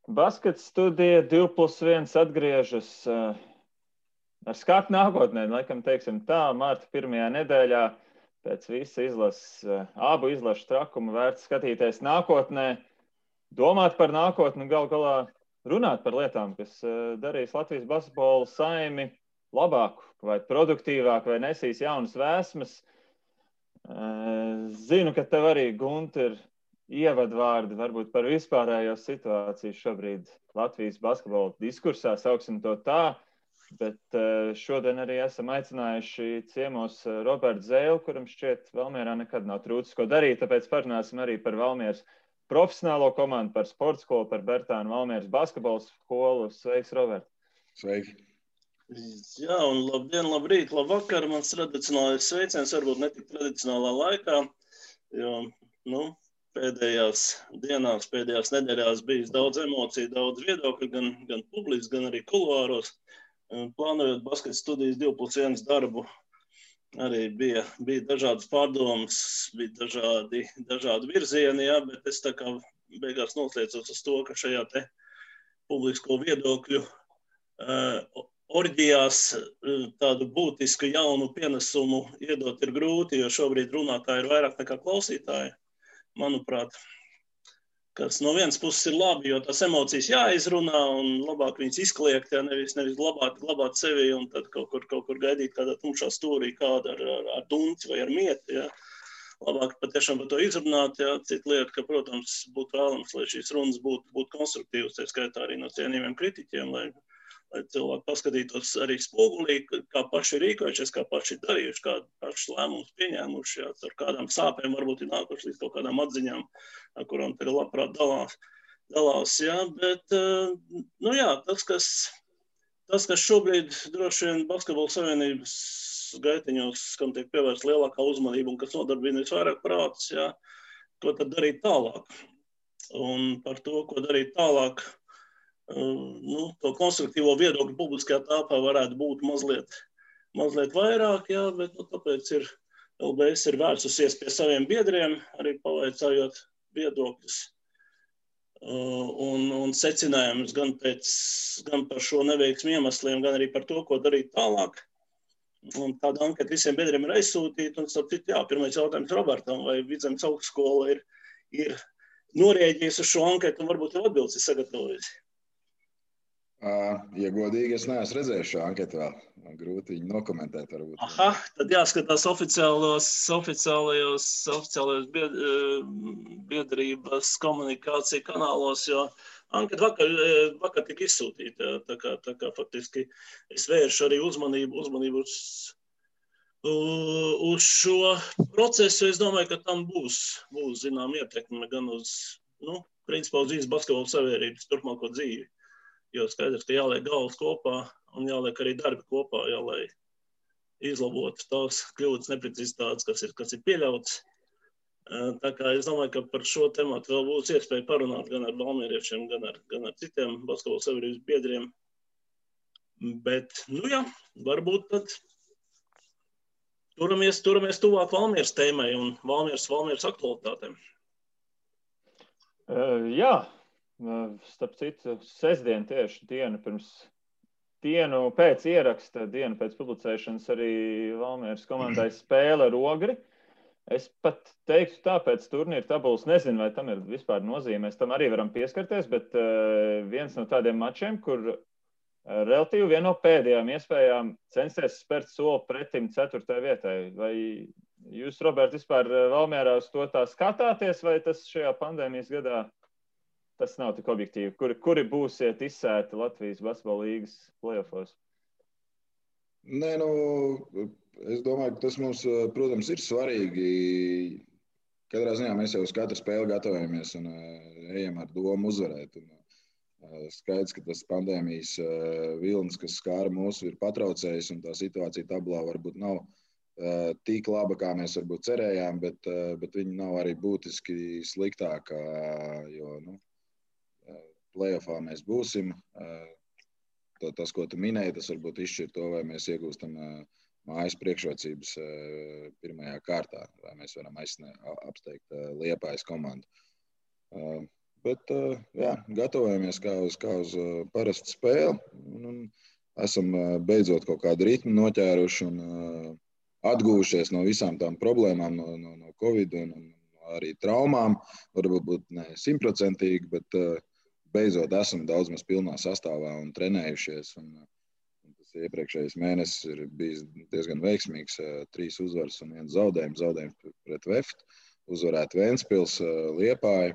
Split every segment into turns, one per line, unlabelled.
Baskets studija 2+1 atgriežas ar skatu nākotnē, laikam teiksim tā, marta pirmajā nedēļā pēc visa abu izlašu trakumu vērts skatīties nākotnē, domāt par nākotni, gal galā runāt par lietām, kas darīs Latvijas basketbola saimi labāku vai produktīvāku vai nesīs jaunas vēsmas. Zinu, ka tev arī, Gunter, ir ievadvārdi varbūt par vispārējo situāciju šobrīd Latvijas basketbola diskursā, sauksim to tā, bet šodien arī esam aicinājuši ciemos Robertu Zēlu, kuram šķiet Valmierā nekad nav trūcis ko darīt, tāpēc parunāsim arī par Valmieras profesionālo komandu, par sporta skolu, par Bertānu Valmieras basketbola skolu. Sveiks, Robert!
Sveiki!
Jā, un labdien, labrīt, labvakar. Mans tradicionālais sveiciens varbūt ne tik tradicionālā laikā, jo, pēdējās dienās, pēdējās nedēļās bijis daudz emociju, daudz viedokļu, gan publiski, gan arī kuluāros. Plānojot basketa studijas 2+1 darbu, arī bija dažādas pārdomas, bija dažādi virzieni, jā, bet es tā kā beigās noslēdzos uz to, ka šajā te publisko viedokļu orģijās tādu būtisku jaunu pienesumu iedot ir grūti, jo šobrīd runātāji ir vairāk nekā klausītāji, manuprāt, kas no vienas puses ir labi, jo tās emocijas jāizrunā un labāk viņas izkliegt, ja nevis glabāt sevi un tad kaut kur gaidīt kādā tumšā stūrī kādu ar dunci vai ar mieti, ja. Labāk patiešām par to izrunāt, ja. Cita lieta, ka, protams, būtu vēlams, lai šīs runas būtu konstruktīvas, tā skaitā arī no cienījumiem kritiķiem, lai cilvēki paskatītos arī spogulī, kā paši rīkojušies, kā paši darījuši, kādu paši lēmumus pieņēmuši, jā, ar kādām sāpēm varbūt ir nākuši līdz kaut kādām atziņām, ar kurām te labprāt dalās, jā, bet, jā, tas, kas šobrīd droši vien Basketbola savienības gaitiņos, kam tiek pievērsta lielākā uzmanība un kas nodarbina visvairāk prātus, jā, ko tad darīt tālāk. Un par to, ko darīt tālāk, to konstruktīvo viedokļu publiskajā tāpā varētu būt mazliet vairāk, jā, bet tāpēc LBS ir vērsusies pie saviem biedriem, arī pavaicājot viedokļus un secinājumus gan par šo neveiksmu iemesliem, gan arī par to, ko darīt tālāk. Un tāda anketa visiem biedriem ir aizsūtīta, un starp citu, jā, pirmais jautājums Robertam, vai Vidzemes augstskola ir norēģijusi uz šo anketu un varbūt jau atbildes ir sagatavojusi.
Ja godīgi, es neesmu redzējis šo anketu vēl. Grūti viņu nokomentēt varbūt.
Aha, tad jāskatās oficiālajos biedrības komunikācija kanālos, jo anketa vakar tika izsūtīta. Tā kā faktiski es vēršu arī uzmanību uz šo procesu. Es domāju, ka tam būs zinām ietekme gan uz, principā uz visas basketbola savienības turpmāko dzīvi. Jo skaidrs, ka jāliek galvas kopā un jāliek arī darbi kopā, jā, lai izlabotu tās kļūdas neprecizitātes, kas ir pieļauts. Tā kā es domāju, ka par šo tematu vēl būs iespēja parunāt gan ar valmieriešiem, gan ar citiem basketbola savienības biedriem. Bet, jā, varbūt tad turamies tuvāk Valmieras tēmai un Valmieras aktualitātēm.
Jā. Starp citu, sestdien tieši dienu pēc ieraksta, dienu pēc publicēšanas arī Valmieras komandai spēle ar Ogri. Es pat teiktu tā, pēc turnīra tabulas nezinu, vai tam ir vispār nozīme. Mēs tam arī varam pieskarties, bet viens no tādiem mačiem, kur relatīvi viena no pēdējām iespējām censties spērt soli pretim 4. vietai. Vai jūs, Robert, vispār Valmierā uz to tā skatāties, vai tas šajā pandēmijas gadā tas nav tik objektīvi? Kuri būsiet izsēti Latvijas basketbola līgas play-offos?
Nē, es domāju, ka tas mums, protams, ir svarīgi. Katrā ziņā mēs jau uz katru spēli gatavojamies un ejam ar domu uzvarēt. Skaidrs, ka tas pandēmijas vilnis, kas skāra mūs, ir patraucējis, un tā situācija tabulā varbūt nav tik laba, kā mēs varbūt cerējām, bet viņi nav arī būtiski sliktākā, jo, play-offā mēs būsim. Tas, ko tu minēji, tas varbūt izšķir to, vai mēs iegūstam mājas priekšrocības pirmajā kārtā, vai mēs varam apsteigt Liepājas komandu. Bet jā, gatavojamies kā uz parastu spēli. Un esam beidzot kaut kādu ritmu noķēruši un atguvušies no visām tām problēmām, no Covid un arī traumām. Varbūt ne 100%, bet beidzot esam daudz maz pilnā sastāvā un trenējušies. Un tas iepriekšējais mēnesis ir bijis diezgan veiksmīgs. 3 uzvaras un 1 zaudējums. Zaudējums pret Veftu, uzvarēt Ventspils, Liepāju,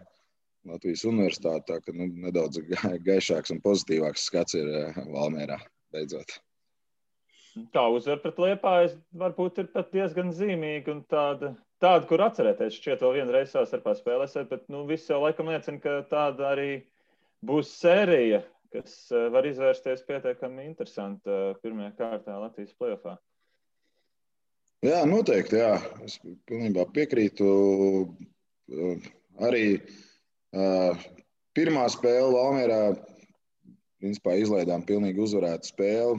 Latvijas Universitāti. Tā ka nedaudz gaišāks un pozitīvāks skats ir Valmierā beidzot.
Tā uzvara pret Liepāju varbūt ir pat diezgan zīmīga un tāda, kur atcerēties. Šķiet vēl vienreiz starpā spēlēsiet, bet viss jau laikam liecina, ka tāda arī būs sērija, kas var izvērsties pietiekami interesanti pirmajā kārtā Latvijas play-offā.
Jā, noteikti, jā. Es pilnībā piekrītu. Arī pirmā spēle Valmierā principā izlaidām pilnīgi uzvarētu spēli.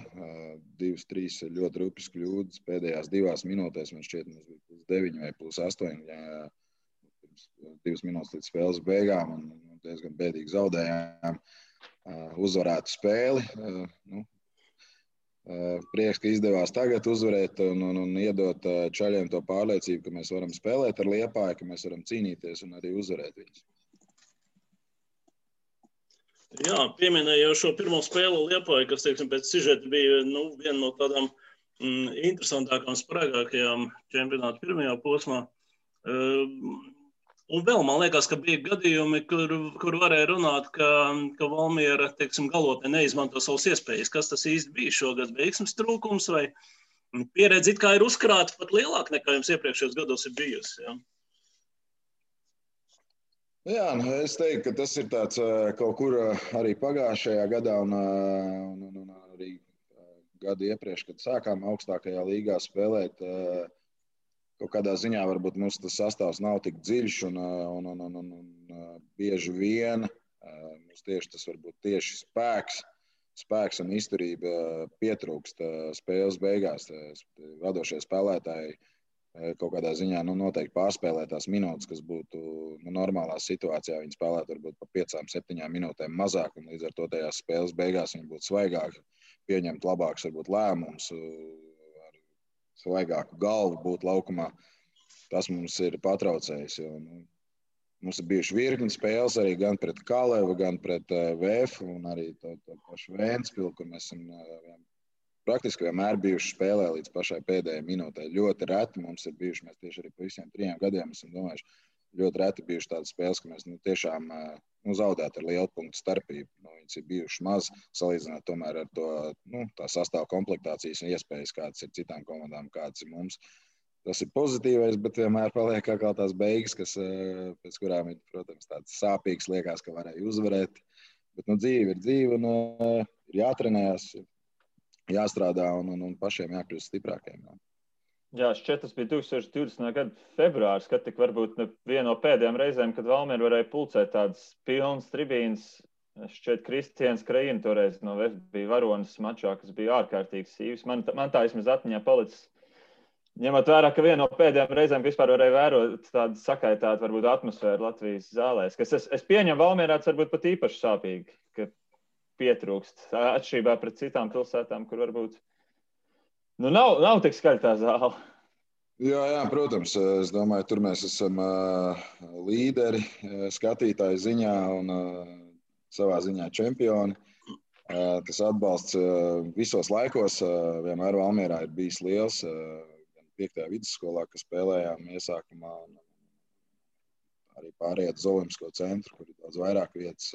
2-3 ļoti rupjas kļūdas pēdējās 2 minūtēs. Man šķiet, mums bija +9 vai +8. 2 minūtes līdz spēles beigām un diezgan bēdīgi zaudējām uzvarētu spēli. Prieks, ka izdevās tagad uzvarēt un iedot čaļiem to pārliecību, ka mēs varam spēlēt ar Liepāju, ka mēs varam cīnīties un arī uzvarēt viņus.
Jā, pieminēju jau šo pirmo spēli Liepāju, kas, teiksim, pēc sižeta bija viena no tādām interesantākām, spraigākajām čempionāta pirmajā posmā. Un vēl man liekas, ka bija gadījumi, kur varēja runāt, ka Valmiera, teiksim, galotnē neizmanto savas iespējas. Kas tas īsti bija šogad? Veiksmes trūkums vai pieredze it kā ir uzkrāta pat lielāk nekā jums iepriekšējos gados ir bijusi? Ja?
Jā, es teiktu, ka tas ir tāds kaut kur arī pagājušajā gadā un arī gadu iepriekš, kad sākām augstākajā līgā spēlēt. Kaut kādā ziņā varbūt mums tas sastāvs nav tik dziļš un bieži vien mums tieši tas varbūt tieši spēks un izturība pietrūkst spēles beigās. Vadošie spēlētāji kaut kādā ziņā noteikti pārspēlē tās minūtes, kas būtu normālā situācijā. Viņi spēlētu varbūt pa 5-7 minūtēm mazāk un līdz ar to tajās spēles beigās viņi būtu svaigāki, pieņemt labāks varbūt lēmums, svaigāku galvu būt laukumā. Tas mums ir patraucējis. Mums ir bijuši virkni spēles arī gan pret Kalevu, gan pret VF un arī to pašu Ventspilu, kur mēs esam praktiski vienmēr bijuši spēlē līdz pašai pēdējai minūtē. Ļoti reti mums ir bijuši, mēs tieši arī pa visiem 3 gadiem esam domājuši, ļoti reti bijuši tādas spēles, ka mēs tiešām zaudētu ar lielu punktu starpību. Viņas ir bijušas maz, salīdzināt tomēr ar to tā sastāvu komplektācijas un iespējas, kādas ir citām komandām, kādas ir mums. Tas ir pozitīvais, bet vienmēr paliek kā tās beigas, pēc kurām ir, protams, tāds sāpīgs, liekas, ka varēja uzvarēt. Bet dzīve ir dzīve un ir jātrenējas, jāstrādā un pašiem jākļūst stiprākiem.
Jā, šķiet, tas bija 2020. Gada februārs, kad tik varbūt viena no pēdējām reizēm, kad Valmiera varēja pulcēt tādas pilnas tribīnas. Šķiet, Kristians Krajina toreiz no VF bija varonis mačā, kas bija ārkārtīgi sīvs. Man tā vismaz atmiņā palicis. Ņemot vērā, ka viena no pēdējām reizēm vispār varēja vērot tādu sakaitātu varbūt atmosfēru Latvijas zālēs, kas es pieņemu Valmierā, tas varbūt pat īpaši sāpīgi, ka pietrūkst atšķirībā pret citām pilsētām, kur varbūt nav tik skaļa tā zāle.
Jā, protams. Es domāju, tur mēs esam līderi skatītāju ziņā un savā ziņā čempioni. Tas atbalsts visos laikos vienmēr Valmierā ir bijis liels. Gan 5. vidusskolā, kas spēlējām iesākumā, arī pārējāt uz Olimpisko centru, kur ir daudz vairāk vietas.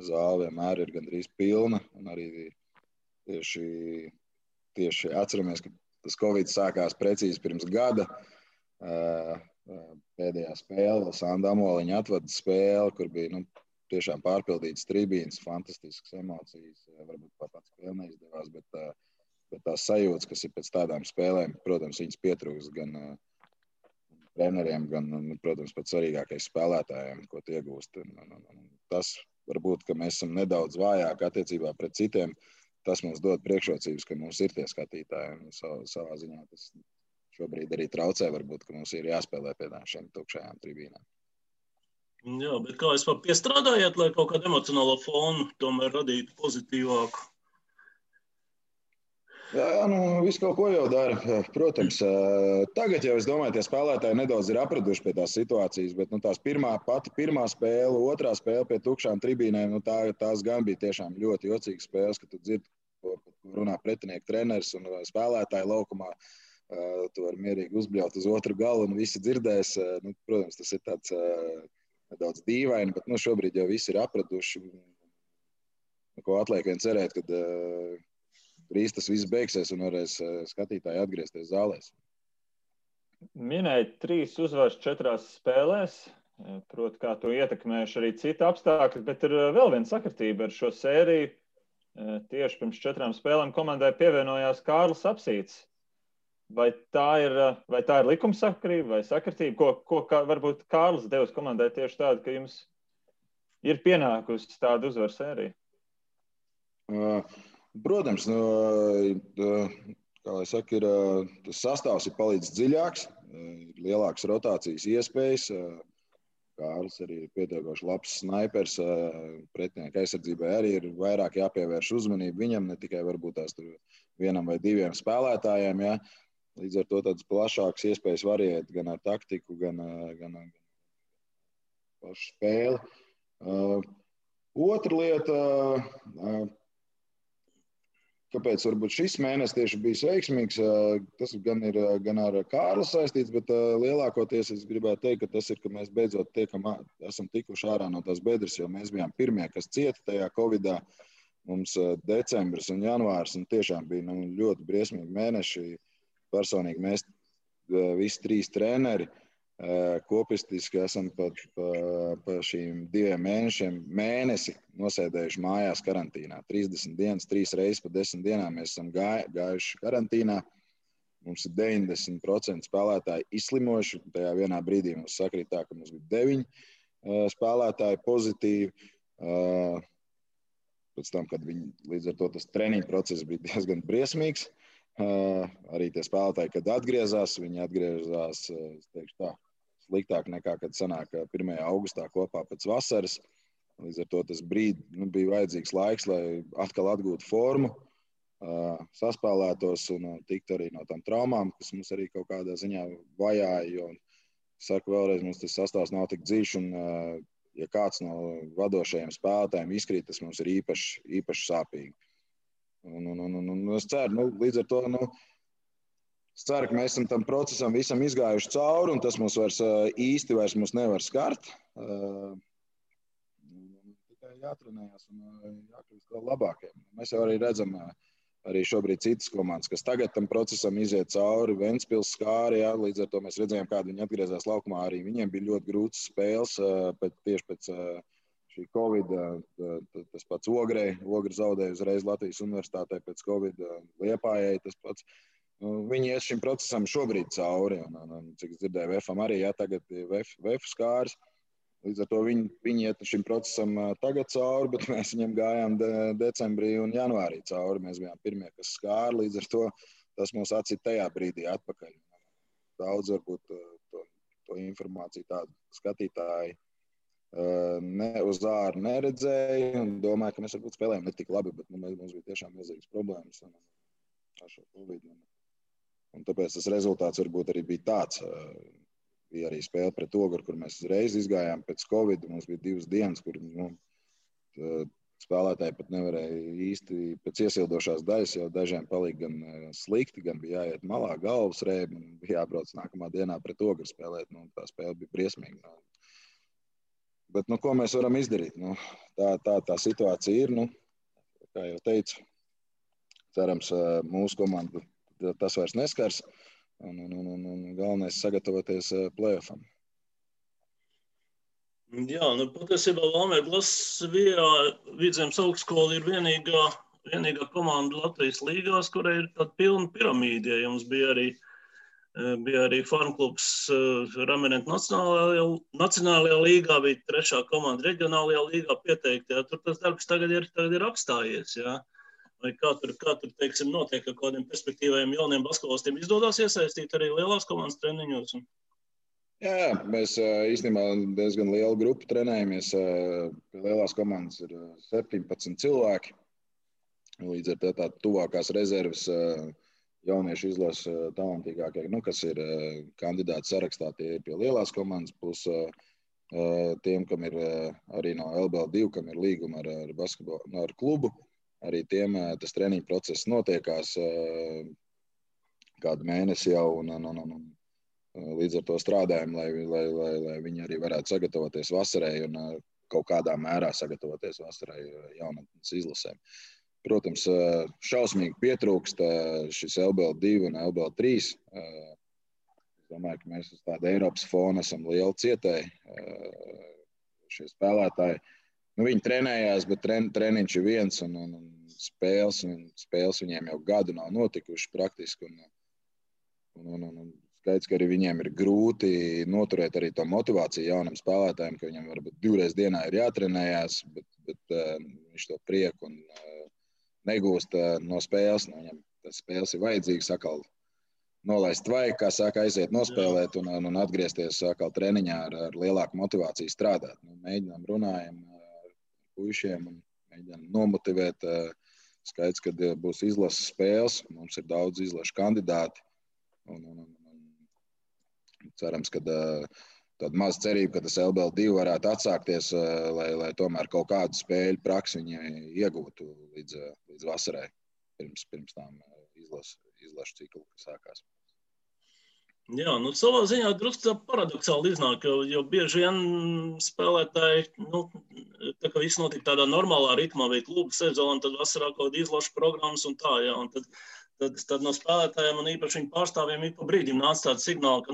Zāle vienmēr ir gandrīz pilna. Un arī tieši atceramies, ka tas Covid sākās precīzi pirms gada. Pēdējā spēle, Sanda Amoliņa atvada spēle, kur bija tiešām pārpildītas tribīnes, fantastiskas emocijas. Varbūt pats spēle neizdevās, bet tās sajūtas, kas ir pēc tādām spēlēm, protams, viņas pietrūks gan treneriem, gan, protams, pats svarīgākais spēlētājiem, ko tie iegūst. Tas varbūt, ka mēs esam nedaudz vājāki attiecībā pret citiem. Tas mums dod priekšrocības, ka mums ir tie skatītāji. Savā ziņā tas šobrīd arī traucē, varbūt, ka mums ir jāspēlē pie šiem tukšajām tribīnām.
Jā, bet kā vispār piestrādājāt, lai kaut kādu emocionālo fonu tomēr radītu pozitīvāku?
Jā, visu kaut ko jau dara. Protams, tagad jau es domāju, tie spēlētāji nedaudz ir apraduši pie tās situācijas, bet tās pirmā spēle, otrā spēle pie tukšām tribīnēm, tās gan bija tiešām ļoti jocīgas spēles, kad tu dzirdi, ko runā pretinieku treneris un spēlētāji laukumā. Tu vari mierīgi uzbļaut uz otru galu un visi dzirdēs. Protams, tas ir tāds nedaudz dīvaini, bet šobrīd jau visi ir apraduši. Ko atliek vien cerēt, kad drīz tas viss beigsies un varēs skatītāji atgriezties zālēs.
Minēja 3 uzvaras 4 spēlēs. Proti, kā to ietekmējuši arī citi apstākļi, bet ir vēl viena sakritība ar šo sēriju. Tieši pirms 4 spēlēm komandai pievienojās Kārlis Apsīts. Vai tā ir likumsakarība vai sakritība? Ko varbūt Kārlis devis komandai tieši tādu, ka jums ir pienākusi tāda uzvaru sērija?
Protams, kā lai saka, tas sastāvs ir palicis dziļāks, ir lielākas rotācijas iespējas. Kārlis arī ir pietiekoši labs snaipers. Pretinieku aizsardzībai arī ir vairāk jāpievērš uzmanību viņam, ne tikai varbūt tās tur 1 vai 2 spēlētājiem. Ja? Līdz ar to tādas plašākas iespējas variēt gan ar taktiku, gan pašu spēli. Otra lieta, kāpēc varbūt šis mēnesis tieši bijis veiksmīgs, tas gan ir gan ar Kārli saistīts, bet lielākoties es gribētu teikt, ka tas ir, ka mēs beidzot esam tikuši ārā no tās bedres, jo mēs bijām pirmie, kas cieta tajā Covidā. Mums decembris un janvārs un tiešām bija ļoti briesmīgi mēneši. Personīgi mēs visi 3 treneri kopistiski esam pa šīm 2 mēnešiem mēnesi nosēdējuši mājās karantīnā. 30 dienas, 3 reizes pa 10 dienām mēs esam gājuši karantīnā. Mums ir 90% spēlētāji izslimojuši. Tajā vienā brīdī mums sakrīt tā, ka mums bija 9 spēlētāji pozitīvi. Pēc tam, kad viņi līdz ar to tas treniņu process bija diezgan briesmīgs. Arī tie spēlētāji, kad atgriezās, viņi atgriezās, es teikšu tā, sliktāk nekā, kad sanāk 1. augustā kopā pēc vasaras. Līdz ar to tas bija vajadzīgs laiks, lai atkal atgūtu formu, saspēlētos un tiktu arī no tām traumām, kas mums arī kaut kādā ziņā vajāja, jo, saku vēlreiz, mums tas sastāvs nav tik dziļš un, ja kāds no vadošajiem spēlētājiem izkrīt, tas mums ir īpaši sāpīgi. Es ceru, līdz ar to, es ceru, ka mēs esam tam procesam visam izgājuši cauri, un tas mums īsti vairs nevar skart. Tikai jātrenējās un jākļūst vēl labākiem. Mēs jau arī redzam arī šobrīd citas komandas, kas tagad tam procesam iziet cauri. Ventspils skāri, jā, līdz ar to mēs redzējām, kādi viņi atgriezās laukumā. Arī viņiem bija ļoti grūtas spēles tieši pēc šī Covid, tas pats Ogre zaudēja uzreiz Latvijas universitātē pēc Covid, Liepājai tas pats. Viņi iet šim procesam šobrīd cauri, un cik es dzirdēju, VFam arī, jā, tagad VF skāris. Līdz ar to viņi iet šim procesam tagad cauri, bet mēs viņam gājām decembrī un janvārī cauri. Mēs bijām pirmie, kas skāra, līdz ar to tas mūs atcīt tajā brīdī atpakaļ. Daudz varbūt to informāciju tādu skatītāji uz āru neredzēja un domāju, ka mēs varbūt spēlējam ne tik labi, bet mums bija tiešām milzīgas problēmas ar šo Covid. Un tāpēc tas rezultāts varbūt arī bija tāds. Bija arī spēle pret Ogru, kur mēs uzreiz izgājām pēc Covid. Mums bija 2 dienas, kur spēlētāji pat nevarēja īsti pēc iesildošās daļas, jo dažiem palika gan slikti, gan bija jāiet malā galvas rēbi un bija jābrauc nākamā dienā pret Ogru spēlēt. Tā spēle bija briesmīga. Bet, ko mēs varam izdarīt? Tā situācija ir, kā jau teicu, cerams, mūsu komandu tas vairs neskars, un galvenais sagatavoties play-offam.
Jā, patiesībā Valmiera Glasvijā Vidzemes augstskola ir vienīgā komanda Latvijas līgās, kurai ir tāda pilna piramīda. Ja jums bija arī farmklubs Ramenentu Nacionālajā līgā, bija 3. komanda reģionālajā līgā pieteikti. Ja? Tur tas darbs tagad ir apstājies. Ja? Vai kā tur teiksim, notiek ar kādiem perspektīvajiem jauniem basketbolistiem? Izdodas iesaistīt arī lielās komandas treniņos?
Jā, mēs īstenībā diezgan lielu grupu trenējamies. Pie lielās komandas ir 17 cilvēki. Līdz ar to tā tuvākās rezerves jauniešu izlases talantīgākie, kas ir kandidāti sarakstā, tie ir pie lielās komandas, plus tiem, kam ir arī no LBL2, kam ir līguma ar basketbolu, ar klubu. Arī tiem tas treniņu process notiekās kādu mēnesi jau. Līdz ar to strādājam, lai viņi arī varētu sagatavoties vasarai un kaut kādā mērā sagatavoties vasarai jaunatnes izlasēm. Protams, šausmīgi pietrūkst šis LBL2 un LBL3. Es domāju, ka mēs uz tāda Eiropas fona esam lieli cietēji. Šie spēlētāji, viņi trenējās, bet treniņš ir viens un spēles viņiem jau gadu nav notikuši praktiski. Skaidrs, ka arī viņiem ir grūti noturēt arī to motivāciju jaunam spēlētājiem, ka viņam varbūt 2 reizes dienā ir jātrenējās, bet viņš to prieku negūst no spēles. Viņam tas spēles ir vajadzīgs atkal nolaist vajag, kā saka, aiziet nospēlēt un atgriezties atkal treniņā ar lielāku motivāciju strādāt. Mēģinām runājam ar puišiem un mēģinām nomotivēt. Skaidrs, ka būs izlases spēles, mums ir daudz izlašu kandidāti. Cerams, ka tāda maza cerība, ka tas LBL2 varētu atsākties, lai tomēr kaut kādu spēļu praksi viņi iegūtu līdz vasarai, pirms tām izlašu ciklu, kas sākās.
Jā, savā ziņā drusku paradoxāli iznāk, jo bieži vien spēlētāji, tā kā viss notika tādā normālā ritmā, bija klubu sezona, tad vasarā kaut kāda izlašu programmas un tā, jā, un tad no spēlētājiem un īpaši viņu pārstāvjiem ik pa brīdim nāca tāds signāls, ka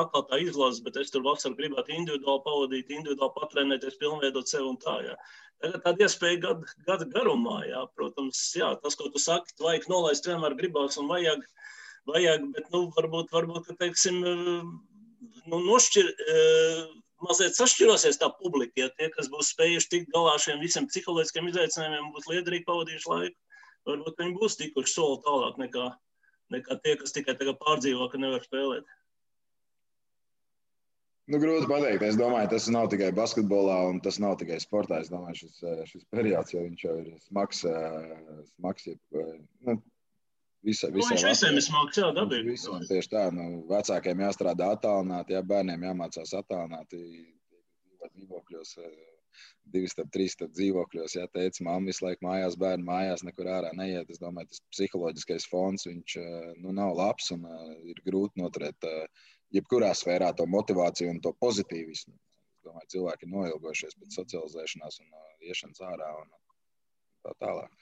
atkal tā izlases, bet es tur vasarā gribētu individuāli pavadīt, individuāli patrenēties, pilnveidot sevi un tā, jā. Tagad tāda iespēja gada garumā, jā, protams, jā, tas, ko tu saki, vajag nolaist vienmēr gribās un vajag, bet, varbūt, ka, teiksim, mazliet sašķirosies tā publika, ja tie, kas būs spējuši tikt galā šiem visiem psiholoģiskiem izaicinājumiem, būs liederīgi pavadījuši laiku. Varbūt viņi būs tikuši soli tālāk nekā tie, kas tikai tagad pārdzīvo, ka nevar spēlēt.
Grūti pateikt. Es domāju, tas nav tikai basketbolā un tas nav tikai sportā. Es domāju, šis periods, jo viņš jau ir smags.
Viņš visiem ir smags, jā, dabīgi.
Visiem tieši tā. Vecākiem jāstrādā attālināti, bērniem jāmācās attālināti dzīvokļos. 2-3 dzīvokļos, ja teica, mamma visu laiku mājās, bērni mājās, nekur ārā neiet. Es domāju, tas psiholoģiskais fons, viņš nav labs un ir grūti noturēt jebkurā sfērā to motivāciju un to pozitīvismu. Es domāju, cilvēki ir noilgojušies pēc socializēšanās un iešanas ārā un tā tālāk.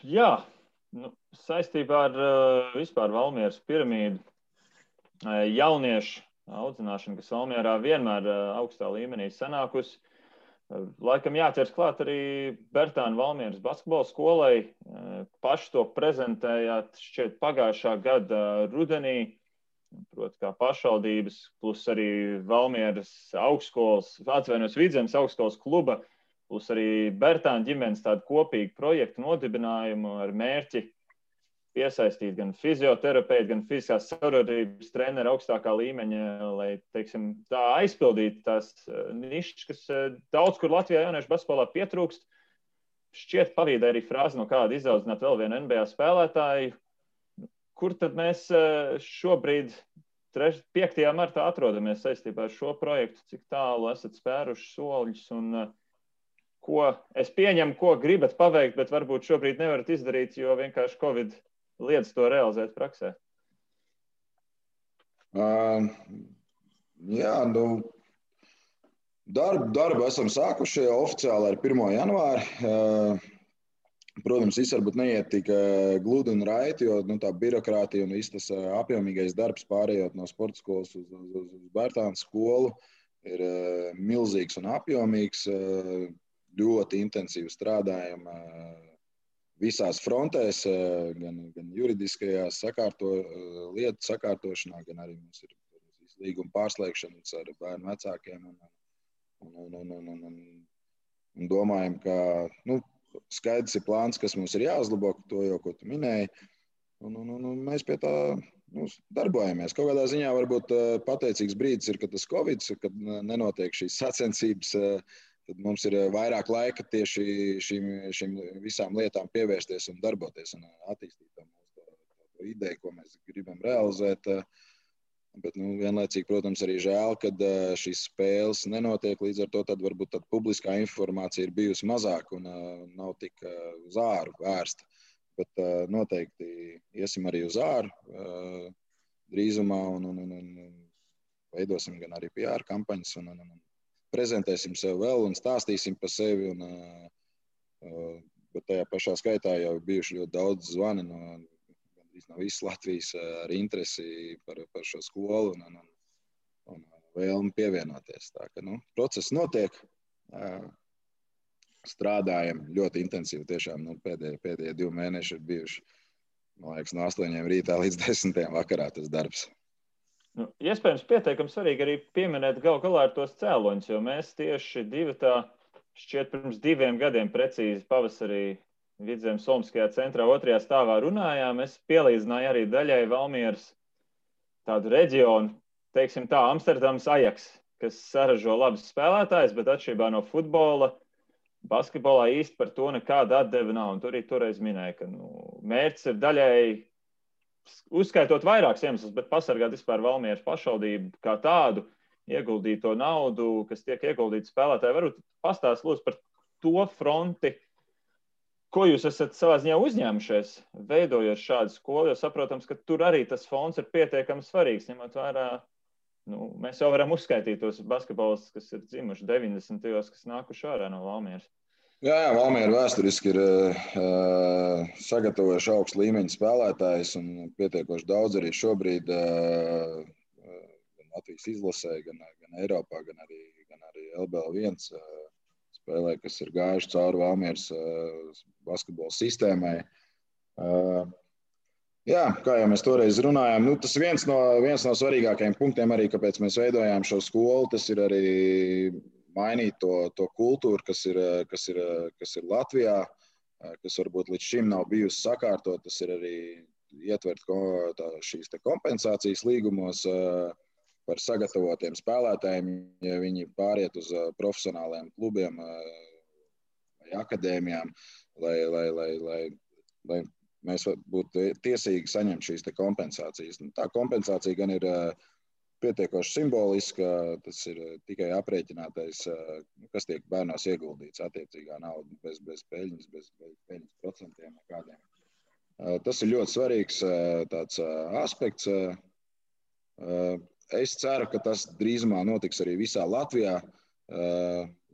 Jā, saistībā ar vispār Valmieras piramīdu jauniešu audzināšana, kas Valmierā vienmēr augstā līmenī sanākusi. Laikam jāķers klāt arī Bertāna Valmieras basketbola skolai. Paši to prezentējāt šķiet pagājušā gada rudenī, proti kā pašvaldības, plus arī Valmieras augstskolas, Vidzemes augstskolas kluba, plus arī Bertāna ģimenes tādu kopīgu projektu nodibinājumu ar mērķi piesaistīt gan fizioterapeitu, gan fiziskās savarodības treneru augstākā līmeņa, lai, teiksim, tā aizpildītu tās nišas, kas daudz kur Latvijā jauniešu basketbolā pietrūkst. Šķiet pavīdē arī frāzi no kāda izaudzināt vēl vienu NBA spēlētāju. Kur tad mēs šobrīd 5. martā atrodamies saistībā ar šo projektu? Cik tālu esat spēruši soļus un ko es pieņemu, ko gribat paveikt, bet varbūt šobrīd nevarat izdarīt, jo vienkārši Covid liedz to realizēt praksē?
Jā, darbu esam sākuši oficiāli ar 1. janvāri. Protams, viss varbūt neiet tik gludi un raiti, jo tā birokrātija un viss tas apjomīgais darbs pārējot no sporta skolas uz Bertāna skolu ir milzīgs un apjomīgs. Ļoti intensīvi strādājam visās frontēs, gan juridiskajās lietu sakārtošanā, gan arī mums ir līguma pārslēgšanas ar bērnu vecākiem. Un domājam, ka skaidrs ir plāns, kas mums ir jāuzlabo, to jau, ko tu minēji. Un mēs pie tā darbojamies. Kaut kādā ziņā varbūt pateicīgs brīdis ir, kad tas Covid, kad nenotiek šīs sacensības, tad mums ir vairāk laika tieši šīm visām lietām pievērsties un darboties un attīstīt to ideju, ko mēs gribam realizēt. Bet vienlaicīgi, protams, arī žēl, kad šīs spēles nenotiek, līdz ar to tad varbūt tad publiskā informācija ir bijusi mazāk un nav tik uz āru vērsta. Bet noteikti iesim arī uz āru drīzumā un veidosim gan arī PR kampaņas un prezentēsim sev vēl un stāstīsim par sevi. Bet tajā pašā skaitā jau bijuši ļoti daudz zvani no visas Latvijas ar interesi par šo skolu un vēlmi pievienoties. Tā ka, process notiek. Strādājam ļoti intensīvi. Tiešām pēdējie 2 mēneši ir bijuši, man liekas, no 8 rītā līdz 10 vakarā tas darbs.
Iespējams, pietiekami svarīgi arī pieminēt gal galā ar tos cēloņus, jo mēs tieši šķiet pirms 2 gadiem precīzi pavasarī Vidzemes Olimpiskajā centrā 2. stāvā runājām. Es pielīdzināju arī daļai Valmieras tādu reģionu, teiksim tā, Amsterdams Ajax, kas saražo labus spēlētājus, bet atšķirībā no futbola, basketbolā īsti par to nekāda atdeve nav. Un tur arī toreiz minēja, ka mērķis ir daļai, uzskaitot vairākus iemeslus, bet pasargāt vispār Valmieras pašvaldību kā tādu, ieguldīt to naudu, kas tiek ieguldīta spēlētāji. Varbūt pastāst lūdzu par to fronti, ko jūs esat savā ziņā uzņēmušies, veidojot šādu skolu, jo saprotams, ka tur arī tas fonds ir pietiekami svarīgs, ņemot vērā, mēs jau varam uzskaitīt tos basketbolistus, kas ir dzimuši 90. kas nākuši ārā no Valmieras.
Jā, Valmiera vēsturiski ir sagatavojuši augstu līmeņu spēlētājus un pietiekoši daudz arī šobrīd gan Latvijas izlasē, gan Eiropā, gan arī LBL1 spēlē, kas ir gājuši cauri Valmieras basketbola sistēmai. Jā, kā jau mēs toreiz runājām, tas viens no svarīgākajiem punktiem arī, kāpēc mēs veidojām šo skolu, tas ir arī mainīt to kultūru, kas ir Latvijā, kas varbūt līdz šim nav bijusi sakārtot. Tas ir arī ietvert šīs kompensācijas līgumos par sagatavotiem spēlētājiem, ja viņi pāriet uz profesionāliem klubiem vai akadēmijām, lai mēs būtu tiesīgi saņemt šīs kompensācijas. Tā kompensācija gan ir pietiekoši simboliska, tas ir tikai aprēķinātais, kas tiek bērnos ieguldīts attiecīgā nauda, bez peļņas, bez peļņas procentiem nekādiem. Tas ir ļoti svarīgs tāds aspekts. Es ceru, ka tas drīzumā notiks arī visā Latvijā.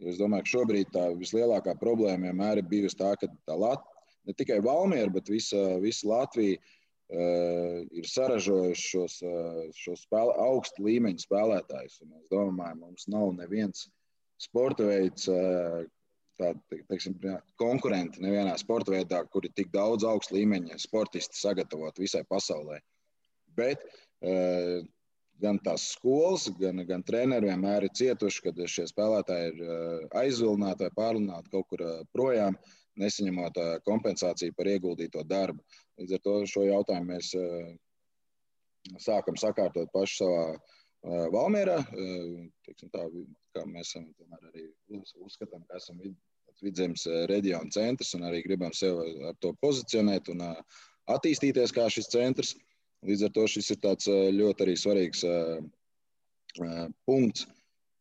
Es domāju, ka šobrīd tā vislielākā problēma vienmēr ir bijusi tā, ka ne tikai Valmiera, bet visa Latvija ir saražojuši šos augstu līmeņu spēlētājus. Un es domāju, mums nav neviens sporta veids, konkurenti nevienā sporta veidā, kur ir tik daudz augstu līmeņa sportisti sagatavot visai pasaulē. Bet gan tās skolas, gan treneri vienmēr ir cietuši, kad šie spēlētāji ir aizvilināti vai pārlināti kaut kur projām, nesaņemot kompensāciju par ieguldīto darbu. Līdz ar to šo jautājumu mēs sākam sakārtot paši savā Valmierā. Tā, kā mēs arī uzskatām, ka esam Vidzemes reģiona centrs un arī gribam sev ar to pozicionēt un attīstīties kā šis centrs. Līdz ar to šis ir tāds ļoti arī svarīgs punkts,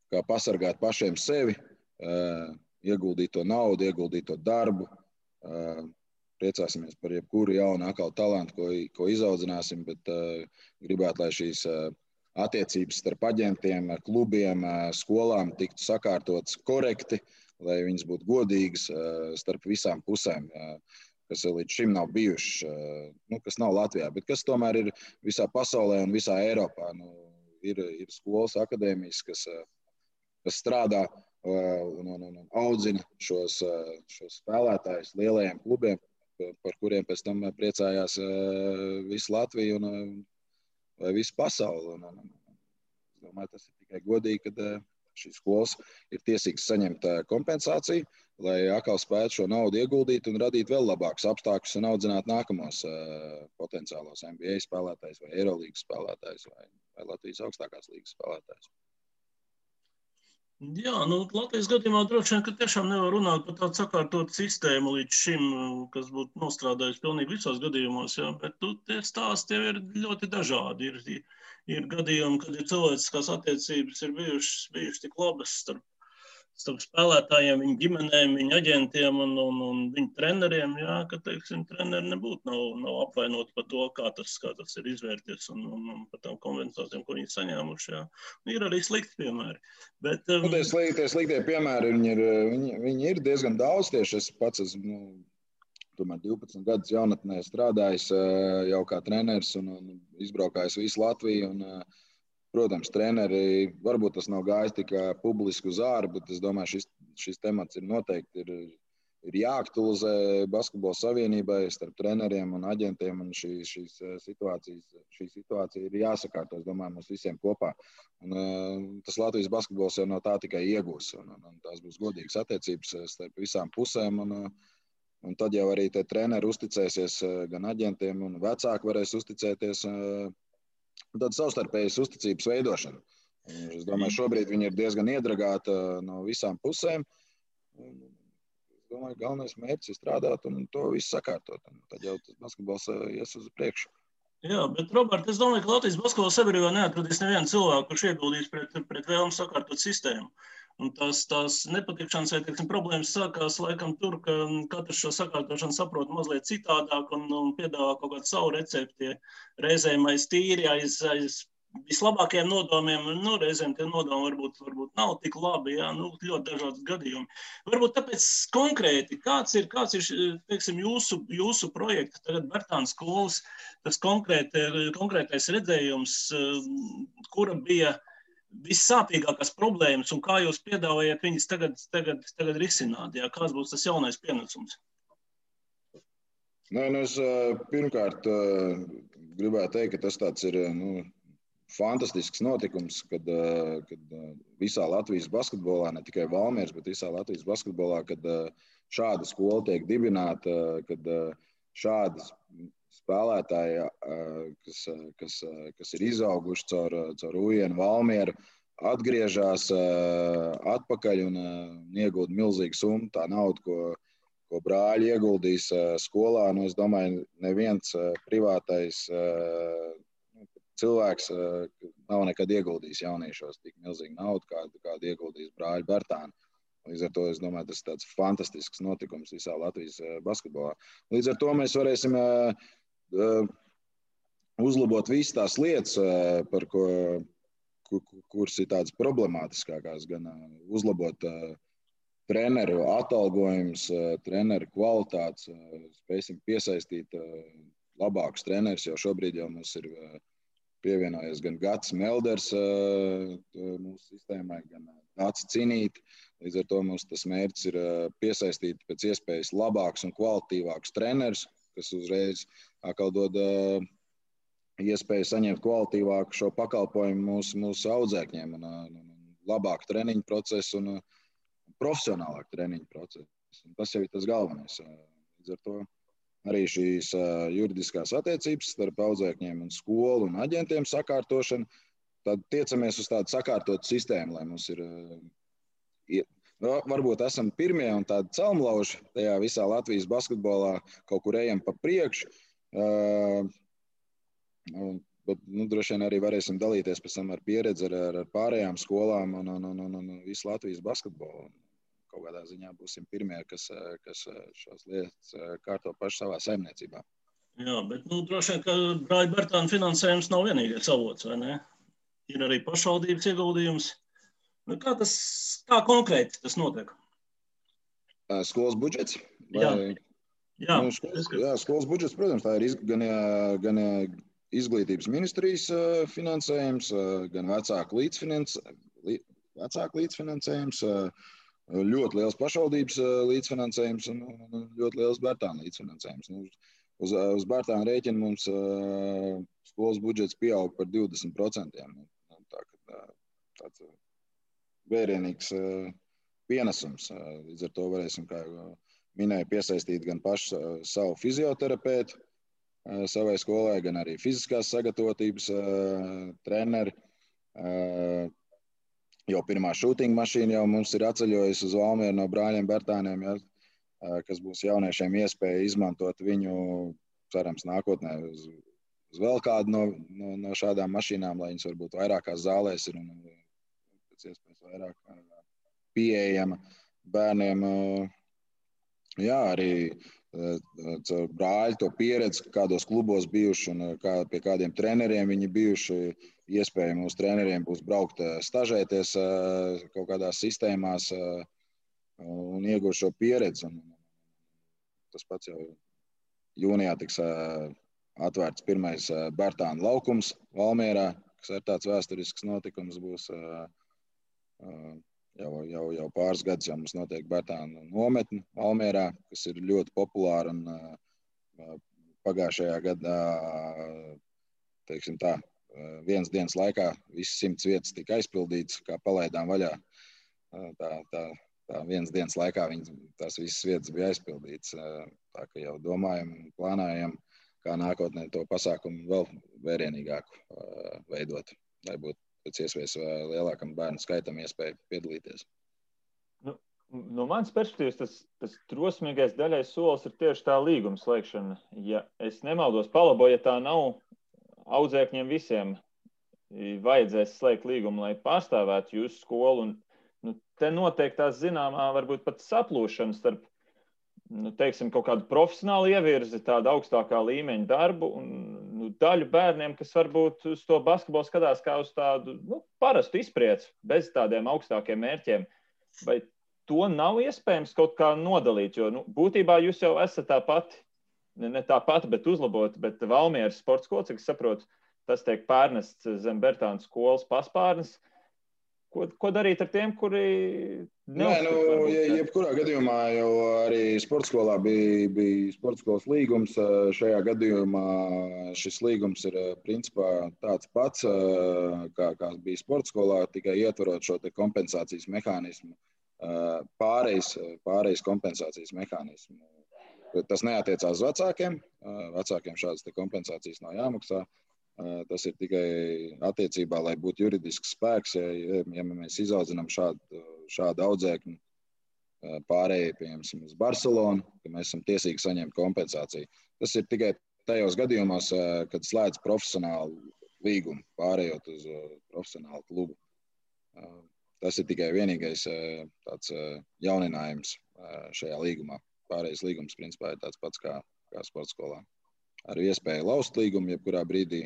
kā pasargāt pašiem sevi, ieguldīt to naudu, ieguldīt to darbu. Priecāsimies par jebkuru jaunu atkal talantu, ko izaudzināsim, bet gribētu, lai šīs attiecības starp aģentiem, klubiem, skolām tiktu sakārtotas korekti, lai viņas būtu godīgas starp visām pusēm, kas līdz šim nav bijušas, kas nav Latvijā, bet kas tomēr ir visā pasaulē un visā Eiropā. Ir skolas, akadēmijas, kas strādā un audzina šos spēlētājus lielajiem klubiem, par kuriem pēc tam priecājās visu Latviju vai visu pasauli. Es domāju, tas ir tikai godīgi, kad šīs skolas ir tiesīgas saņemt kompensāciju, lai atkal spētu šo naudu ieguldīt un radīt vēl labākus apstākļus un audzināt nākamos potenciālos NBA spēlētājus vai Eirolīgas spēlētājus vai Latvijas augstākās līgas spēlētājus.
Jā, Latvijas gadījumā droši vien, ka tiešām nevar runāt par tādu sakārtotu sistēmu līdz šim, kas būtu nostrādājusi pilnīgi visos gadījumos, jā, bet tie stāsti jau ir ļoti dažādi. Ir gadījumi, kad ir cilvēciskās attiecības ir bijušas tik labas starp spēlētājiem, viņu ģimenēm, viņu aģentiem un viņu treneriem, jā, ka, teiksim, treneri nebūtu nav apvainoti par to, kā tas ir izvērties un par tām kompensācijām, ko viņi saņēmuši, jā. Ir arī slikti piemēri. Bet,
tie sliktie piemēri, viņi ir diezgan daudz tieši. Es pats esmu, tomēr 12 gadus jaunatnē strādājis jau kā treneris un izbraukājis visu Latviju un protams, treneri, varbūt tas nav gājis tikai publiski uz āru, bet es domāju, šis temats ir noteikti ir jāaktualizē Basketbola savienībai starp treneriem un aģentiem, un šī situācija ir jāsakārto, es domāju, mums visiem kopā. Un, tas Latvijas basketbols jau no tā tikai iegūs, un tās būs godīgas attiecības starp visām pusēm, un tad jau arī te treneri uzticēsies gan aģentiem, un vecāki varēs uzticēties tāda savstarpējas uzticības veidošana. Es domāju, šobrīd viņi ir diezgan iedragāti no visām pusēm. Es domāju, galvenais mērķis ir strādāt un to visu sakārtot. Tad jau tas basketbols ies uz priekšu.
Jā, bet, Robert, es domāju, ka Latvijas basketbola sabiedrībā neatradīs nevienu cilvēku, kurš ieguldīs pret vēlmu sakārtot sistēmu. Un tās nepatikšanas vai, teiksim, problēmas sākās laikam tur, ka katrs šo sakārtošanu saprot mazliet citādāk un piedāvā kaut kādu savu recepti. Reizēm aiz tīri, aiz vislabākajiem nodomiem, reizēm tie nodomi varbūt nav tik labi, jā, ļoti dažādas gadījumi. Varbūt tāpēc konkrēti, kāds ir teiksim, jūsu projekta, tagad Bertāna skolas, tas konkrētais redzējums, kura bija vissāpīgākās problēmas un kā jūs piedāvājat viņas tagad risināt? Jā? Kāds būs tas jaunais pienesums?
Es pirmkārt gribētu teikt, ka tas tāds ir fantastisks notikums, kad visā Latvijas basketbolā, ne tikai Valmieras, bet visā Latvijas basketbolā, kad šāda skola tiek dibināta, kad šādas spēlētāji, kas ir izauguši caur Ujienu Valmieru, atgriežas atpakaļ un iegūda milzīgu summu. Tā nauda, ko brāļi ieguldīs skolā, es domāju, neviens privātais cilvēks nav nekad ieguldījis jauniešos tik milzīgu naudu, kādu ieguldījis brāļi Bertāni. Līdz ar to, es domāju, tas ir tāds fantastisks notikums visā Latvijas basketbolā. Līdz ar to mēs varēsim uzlabot visas tās lietas, kuras ir tādas problemātiskākās, gan uzlabot treneru atalgojumus, treneru kvalitātes, spēsim piesaistīt labākus trenerus, jo šobrīd jau mums ir pievienojies gan Gats Melders mūsu sistēmai, gan Nācis Cinīt. Līdz ar to mums tas mērķis ir piesaistīt pēc iespējas labākus un kvalitīvākus trenerus, kas uzreiz atkal dod iespēju saņemt kvalitīvāku šo pakalpojumu mūsu audzēkņiem un labāku treniņu procesu un profesionālāku treniņu procesu. Un tas jau ir tas galvenais. Līdz ar to arī šīs juridiskās attiecības starp audzēkņiem un skolu un aģentiem sakārtošana, tad tiecamies uz tādu sakārtotu sistēmu, lai mums ir varbūt esam pirmie un tādi celmlauži tajā visā Latvijas basketbolā, kaut kur ejam pa priekšu, bet droši vien arī varēsim dalīties pēc tam ar pieredzi ar pārējām skolām un visu Latvijas basketbolu. Kaut kādā ziņā būsim pirmie, kas šās lietas kārto paši savā saimniecībā.
Jā, bet droši vien, ka brāļa Bertāna finansējums nav vienīgais avots, vai ne? Ir arī pašvaldības ieguldījums. Kā konkrēti tas notiek?
Skolas budžets?
Jā,
skolas budžets, protams, tā ir gan izglītības ministrijas finansējums, gan vecāku līdzfinansējums, ļoti liels pašvaldības līdzfinansējums un ļoti liels Bertāna līdzfinansējums. Uz Bertāna rēķina mums skolas budžets pieaug par 20%. Tāds vērienīgs pienesums. Līdz ar to varēsim, kā minēju, piesaistīt gan pašu savu fizioterapeitu savai skolai, gan arī fiziskās sagatavotības treneri. Jau pirmā šūtinga mašīna jau mums ir atceļojusi uz Valmieru no brāļiem Bertāniem, ja, kas būs jauniešiem iespēja izmantot viņu, cerams, nākotnē uz vēl kādu no šādām mašīnām, lai viņas varbūt vairākās zālēs ir un pēc iespējas vairāk pieejama bērniem. Jā, arī caur brāļu to pieredzi, kādos klubos bijuši un pie kādiem treneriem viņi bijuši. Iespēja mūsu treneriem būs braukt stažēties kaut kādās sistēmās un iegūt šo pieredzi. Un tas pats jau jūnijā tiks atvērts pirmais Bertānu laukums Valmierā, kas ir tāds vēsturisks notikums būs. Jau pāris gadus jau mums notiek Bertānu nometne Valmierā, kas ir ļoti populāra un pagājušajā gadā, teiksim tā, vienas dienas laikā visas 100 vietas tika aizpildītas, kā palaidām vaļā. Tā vienas dienas laikā tās visas vietas bija aizpildītas. Tā ka jau domājam un plānājam, kā nākotnē to pasākumu vēl vērienīgāku veidot, lai būtu pēc iespējas lielākam bērnu skaitam iespēja piedalīties.
No manas perspektīvas tas drosmīgais daļais solis ir tieši tā līguma slēgšana. Ja es nemaldos, palabo, ja tā nav, audzēkņiem visiem vajadzēs slēgt līgumu, lai pārstāvētu jūsu skolu. Un, te notiek tās zināmā, varbūt pat saplūšana starp, teiksim, kaut kādu profesionālu ievirzi, tādu augstākā līmeņa darbu un daļu bērniem, kas varbūt uz to basketbolu skatās kā uz tādu parastu izprieci, bez tādiem augstākiem mērķiem. Vai to nav iespējams kaut kā nodalīt? Jo būtībā jūs jau esat tā pati, ne tā pati, bet uzlabot, bet Valmieras sporta skola, cik es saprotu, tas tiek pārnests zem Bertānu skolas paspārnes. Ko darīt ar tiem, kuri neuzskata?
Jebkurā gadījumā jau arī sporta skolā bija sporta skolas līgums. Šajā gadījumā šis līgums ir principā tāds pats, kā bija sporta skolā, tikai ietverot šo te kompensācijas mehānismu, pārejas kompensācijas mehānismu. Tas neatiecās uz vecākiem. Vecākiem šādas te kompensācijas nav jāmaksā. Tas ir tikai attiecībā, lai būtu juridisks spēks, ja mēs izaudzinām šādu audzēkņu pārējai, piemēram, uz Barcelonu, ka mēs esam tiesīgi saņemt kompensāciju. Tas ir tikai tajos gadījumos, kad slēdz profesionālu līgumu, pārējot uz profesionālu klubu. Tas ir tikai vienīgais tāds jauninājums šajā līgumā. Pārējais līgums, principā, ir tāds pats kā sporta skolā. Ar iespēju laust līgumu, jebkurā brīdī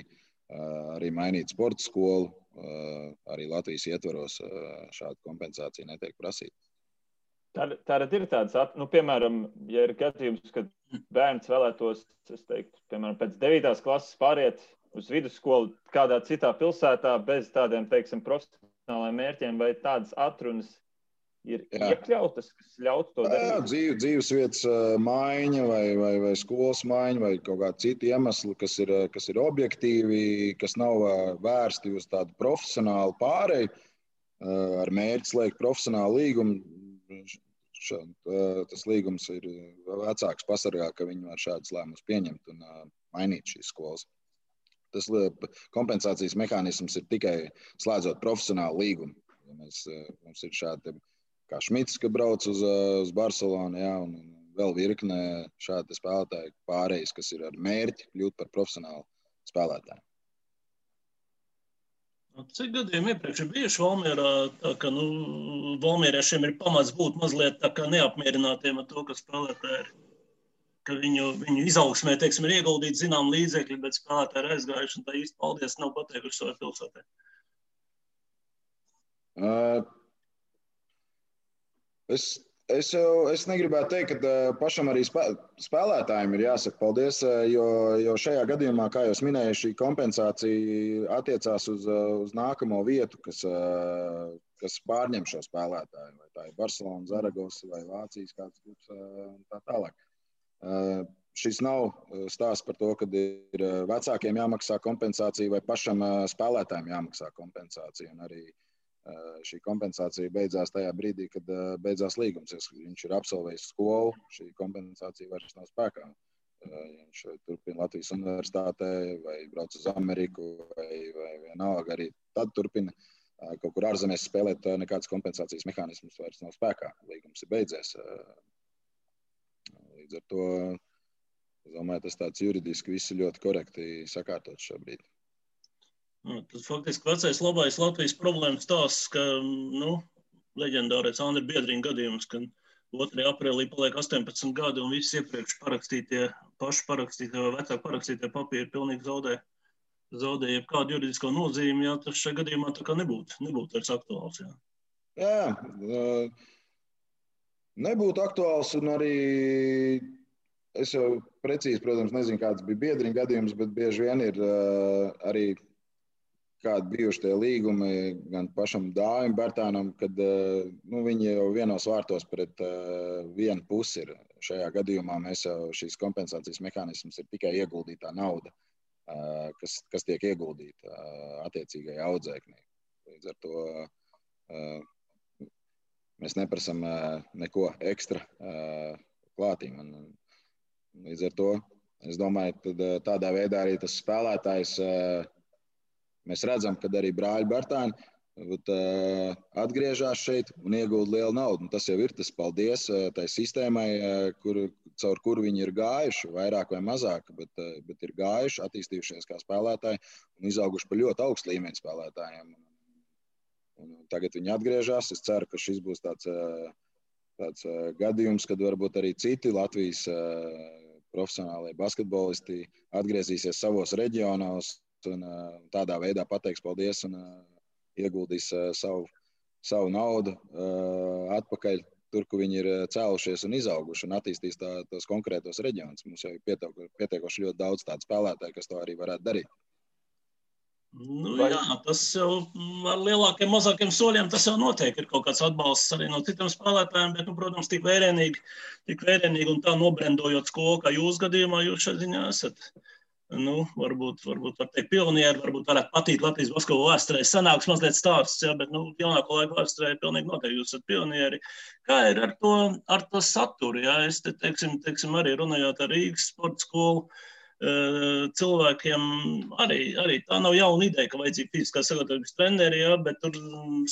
arī mainīt sporta skolu, arī Latvijas ietvaros šāda kompensācija netiek prasīta.
Tātad ir tāds, piemēram, ja ir gadījums, kad bērns vēlētos, es teiktu, piemēram, pēc 9. klases pāriet uz vidusskolu kādā citā pilsētā bez tādiem, teiksim, profesionālajiem mērķiem, vai tādas atrunas ir iekļautas, kas ļautu to darīt?
Dzīvesvietas maiņa vai skolas maiņa vai kaut kādi citi iemesli, kas ir objektīvi, kas nav vērsti uz tādu profesionālu pāreju, ar mērķi slēgt profesionālu līgumu. Tas līgums ir vecāks pasargā, ka viņi var šādus lēmumus pieņemt un mainīt šīs skolas. Tas kompensācijas mehānisms ir tikai slēdzot profesionālu līgumu. Ja mums ir šādi kā Šmits, ka brauc uz Barcelonu, un vēl virkne šādi spēlētāji pārējais, kas ir ar mērķi kļūt par profesionālu spēlētāju.
Cik gadiem iepriekš ir bijuši Valmierā, tā ka valmieriešiem ir pamats būt mazliet tā kā neapmierinātiem ar to, ka spēlētāji ir, ka viņu izaugsmē, teiksim, ir ieguldīti zinām līdzekļi, bet spēlētāji ir aizgājuši un tā īsti paldies nav pateikuši savai pilsētē?
Es negribētu teikt, ka pašam arī spēlētājiem ir jāsaka paldies, jo šajā gadījumā, kā jau minēju, šī kompensācija attiecās uz nākamo vietu, kas pārņem šo spēlētāju. Vai tā ir Barcelona, Zaragoza vai Vācijas kāds klubs un tā tālāk. Šis nav stāsts par to, ka ir vecākiem jāmaksā kompensācija vai pašam spēlētājiem jāmaksā kompensācija. Un arī Šī kompensācija beidzās tajā brīdī, kad beidzās līgums. Viņš ir absolvējis skolu, šī kompensācija vairs nav spēkā. Viņš turpina Latvijas universitātē vai brauc uz Ameriku vai vienalga arī tad turpina kaut kur ārzemēs spēlēt, nekādas kompensācijas mehānismus vairs nav spēkā. Līgums ir beidzies. Līdz ar to, es domāju, tas tāds juridiski viss ir ļoti korekti sakārtots šobrīd.
Tad faktiski vecais labais Latvijas problēmas tās, ka, leģendārais Andri Biedriņa gadījums, ka 2. aprīlī paliek 18 gadi un visi iepriekš paši parakstītie vai vecāki parakstītie papīri pilnīgi zaudē jebkādu juridisko nozīmi, ja tas šajā gadījumā tā kā nebūtu vairs aktuāls.
Jā, nebūtu aktuāls un arī es jau precīzi, protams, nezinu, kāds bija Biedriņa gadījums, bet bieži vien ir arī kādi bijuši tie līgumi gan pašam Dāvim Bērtānam, kad viņi jau vienos vārtos pret vienu pusi ir. Šajā gadījumā mēs jau šīs kompensācijas mehānisms ir tikai ieguldītā nauda, kas tiek ieguldīta attiecīgajā audzēknī. Līdz ar to mēs neprasam neko ekstra klātīm. Līdz ar to es domāju, ka tādā veidā arī tas spēlētājs mēs redzam, ka arī brāļi Bērtāni atgriežas šeit un iegūda lielu naudu. Tas jau ir tas paldies tai sistēmai, caur kuru viņi ir gājuši, vairāk vai mazāk, bet ir gājuši, attīstījušies kā spēlētāji un izauguši par ļoti augstu līmeņu spēlētājiem. Un tagad viņi atgriežas. Es ceru, ka šis būs tāds gadījums, kad varbūt arī citi Latvijas profesionālie basketbolisti atgriezīsies savos reģionos un tādā veidā pateiks paldies un ieguldīs savu naudu atpakaļ tur, kur viņi ir cēlušies un izauguši un attīstīs tos konkrētos reģionus. Mums jau ir pietiekoši ļoti daudz tādu spēlētāju, kas to arī varētu darīt.
Jā, tas jau ar lielākiem, mazākiem soļiem tas jau notiek. Ir kaut kāds atbalsts arī no citiem spēlētājiem, bet, protams, tik vērienīgi un tā nobrendojot skolu, kā jūs gadījumā, jūs šeit ziņā esat. Varbūt var teikt pionieri, varbūt varētu patīt Latvijas basketbola vēsturē. Sanāks mazliet stāsts, bet jaunāko laiku vēsturē pilnīgi noteikti jūs esat pionieri. Kā ir ar to saturu? Es te, teiksim, arī runājot ar Rīgas sporta skolu cilvēkiem, arī tā nav jauna ideja, ka vajadzīga fiziskā sagatavības treneri, bet tur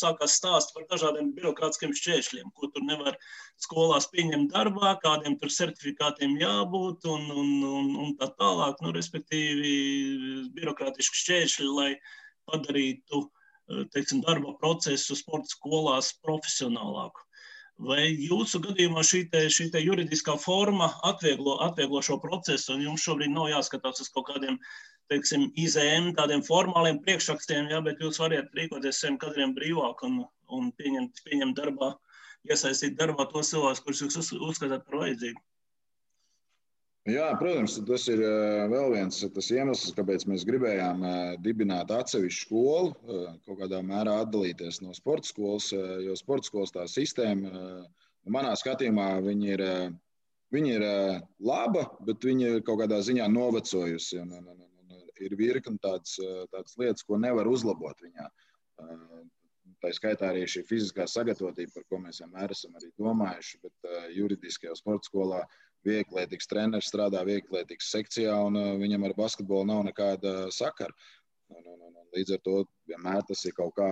sākās stāst par dažādiem birokrātiskiem šķēršļiem, ko tur nevar skolās pieņemt darbā, kādiem tur certifikātiem jābūt un tā tālāk, respektīvi birokrātiski šķēršļi, lai padarītu, teiksim, darba procesu sporta skolās profesionālāku. Vai jūsu gadījumā šī juridiskā forma atvieglo šo procesu, un jums šobrīd nav jāskatās uz kaut kādiem, teiksim, IZM, tādiem formāliem priekšrakstiem, bet jūs variet rīkoties saviem kadriem brīvāk un pieņemt darbā, iesaistīt darbā tos cilvēkus, kurus jūs uzskatāt par vajadzīgu?
Jā, protams, tas ir vēl viens tas iemesls, kāpēc mēs gribējām dibināt atsevišķu skolu, kaut kādā mērā atdalīties no sporta skolas, jo sporta skolas tā sistēma, manā skatījumā, viņi ir laba, bet viņi ir kaut kādā ziņā novecojusi. Ir virkni tādas lietas, ko nevar uzlabot viņā. Tā skaitā arī šī fiziskā sagatavotība, par ko mēs vienmēr esam arī domājuši, bet juridiskajā sporta skolā vieglietīgs treneris strādā vieglietīgas sekcijā, un viņam ar basketbolu nav nekāda sakara. Līdz ar to vienmēr tas ir kaut kā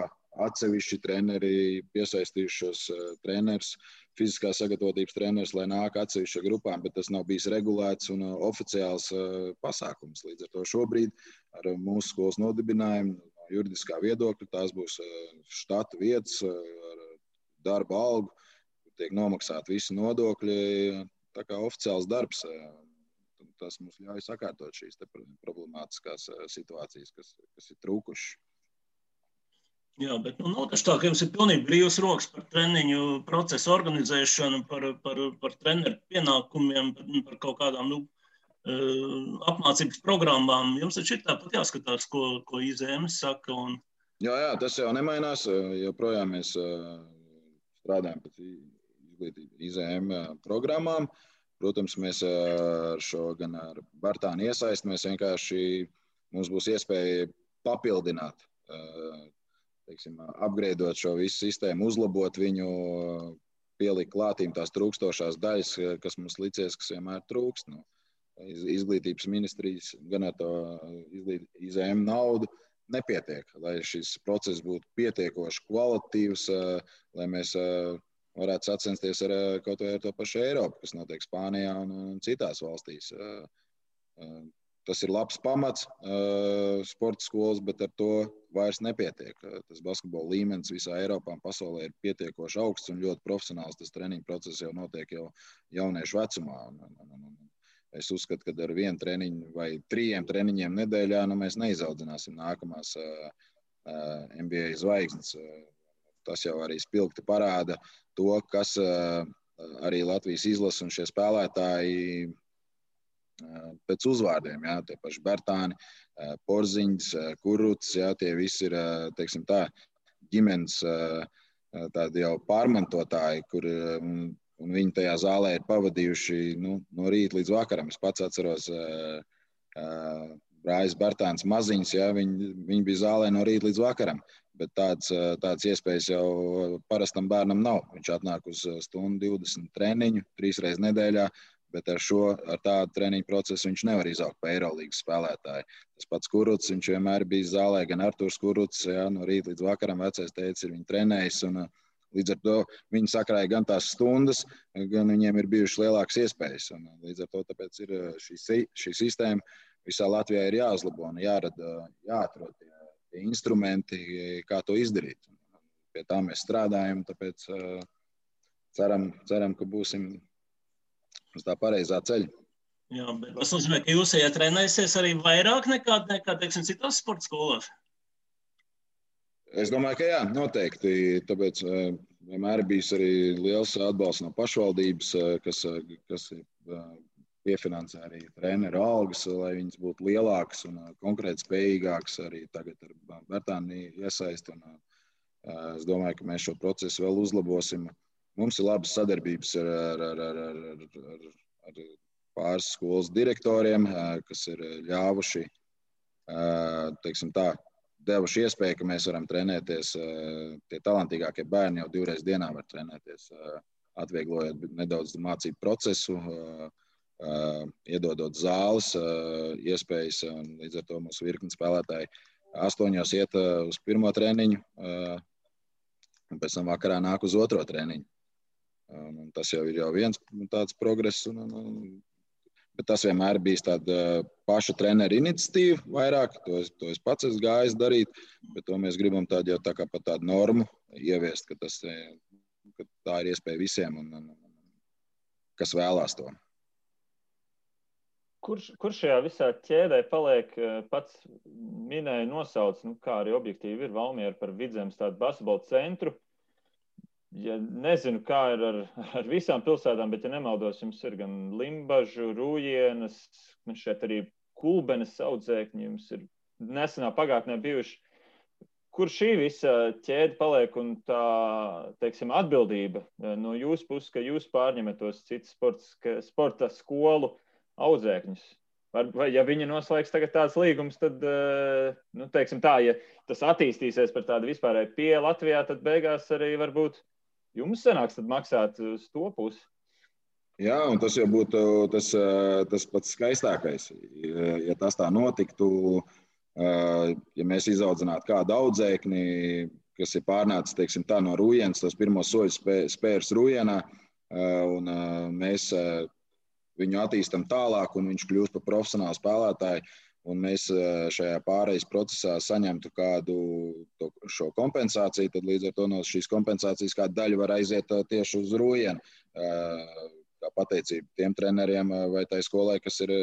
atsevišķi treneri, piesaistījušos treneris, fiziskā sagatavotības treneris, lai nāk atsevišķa grupām, bet tas nav bijis regulēts un oficiāls pasākums. Līdz ar to šobrīd ar mūsu skolas nodibinājumu no juridiskā viedokļa tās būs štata vietas ar darba algu, tiek nomaksāti visi nodokļi. Tā kā oficiāls darbs, tas mums ļauj sakārtot šīs problemātiskās situācijas, kas ir trūkušas.
Jā, bet nav taču tā, ka jums ir pilnīgi brīvs rokas par treniņu procesu organizēšanu, par treneru pienākumiem, par kaut kādām apmācības programmām. Jums taču ir tāpat jāskatās, ko IZM saka.
Jā, tas jau nemainās. Joprojām mēs strādājam pēc IZM programmām. Protams, mēs ar šo gan ar Bērtānu iesaisti, mums būs iespēja papildināt teiksim, upgradeot šo visu sistēmu, uzlabot viņu, pielikt klātīm tās trūkstošās daļas, kas mums licies, kas vienmēr trūkst. Nu, izglītības ministrijas gan ar to IZM naudu nepietiek, lai šis process būtu pietiekoši kvalitatīvs, lai mēs varētu sacensties ar kaut vai ar to pašu Eiropu, kas notiek Spānijā un citās valstīs. Tas ir labs pamats sporta skolas, bet ar to vairs nepietiek. Tas basketbola līmenis visā Eiropā un pasaulē ir pietiekoši augsts un ļoti profesionāls. Tas treniņu process jau notiek jau jauniešu vecumā. Es uzskatu, ka ar 1 treniņu vai 3 treniņiem nedēļā mēs neizaudzināsim nākamās NBA zvaigznes. Tas jau arī spilgti parāda to, kas arī Latvijas izlase un šie spēlētāji pēc uzvārdiem, jā, tie paši Bertāni, Porziņš, Kuruts, jā, tie visi ir, teiksim tā, ģimenes tādi jau pārmantotāji, kur un viņi tajā zālē ir pavadījuši no rīta līdz vakaram. Es pats atceros Brājs Bertāns maziņš, jā, viņi bija zālē no rīta līdz vakaram. Bet tādas iespējas jau parastam bērnam nav. Viņš atnāk uz 1:20 treniņu 3 reizes nedēļā, bet ar tādu treniņu procesu viņš nevar izaugt pa Eirolīgas spēlētāju. Tas pats Kuruts, viņš vienmēr bija zālē, gan Arturs Kuruts, jā, no rīta līdz vakaram vecais teicis, ir viņu trenējis, un līdz ar to viņi sakrāja gan tās stundas, gan viņiem ir bijušas lielākas iespējas. Un līdz ar to tāpēc ir šī sistēma visā Latvijā ir jāuzlabo un jāatrod tie instrumenti, kā to izdarīt. Pie tā mēs strādājam, tāpēc ceram, ka būsim uz tā pareizā ceļa.
Jā, bet tas nozīmē, ka jūs trenēsies arī vairāk nekā teiksim, citās sporta skolās?
Es domāju, ka jā, noteikti. Tāpēc vienmēr ir bijis arī liels atbalsts no pašvaldības, kas piefinansē arī treneru algas, lai viņas būtu lielākas un konkrēti spējīgākas. Arī tagad ar Bertāni iesaist. Es domāju, ka mēs šo procesu vēl uzlabosim. Mums ir labas sadarbības ar pāris skolas direktoriem, kas ir ļāvuši, teiksim tā, devuši iespēju, ka mēs varam trenēties. Tie talantīgākie bērni jau 2 reizes dienā var trenēties, atvieglojot nedaudz mācību procesu, iedodot zāles, iespējas. Līdz ar to mūsu virkni spēlētāji 8 iet uz 1. treniņu, un pēc tam vakarā nāk uz 2. treniņu. Un tas jau ir viens tāds progress. Bet tas vienmēr bijis tāda paša trenera iniciatīva vairāk. To es pats esmu gājis darīt, bet to mēs gribam tādu jau tā kā pat tādu normu ieviest, ka tā ir iespēja visiem, un kas vēlās to.
Kur šajā visā ķēdē paliek, pats minēja nosauc, kā arī objektīvi ir Valmiera par Vidzemes tādu basketbola centru. Ja nezinu, kā ir ar visām pilsētām, bet, ja nemaldos, jums ir gan Limbažu, Rūjienas, šeit arī Kulbenes audzēkņi, jums ir nesenā pagātnē bijuši. Kur šī visa ķēde paliek un tā, teiksim, atbildība no jūsu puses, ka jūs pārņemat tos citus sporta skolu audzēkņus? Vai ja viņi noslēgs tagad tāds līgums, tad, teiksim tā, ja tas attīstīsies par tādu vispārēju pie Latvijā, tad beigās arī varbūt jums sanāks tad maksāt uz to pusi.
Jā, un tas jau būtu tas pats skaistākais. Ja tas tā notiktu, ja mēs izaudzinātu kādu audzēkni, kas ir pārnācis, teiksim tā, no Rūjienas, tos pirmos soļus spērs Rūjienā, un mēs viņu attīstam tālāk, un viņš kļūst par profesionālu spēlētāju, un mēs šajā pārejas procesā saņemtu kādu šo kompensāciju, tad līdz ar to no šīs kompensācijas kāda daļa var aiziet tieši uz Rūjienu. Kā pateicība tiem treneriem vai tai skolai, kas ir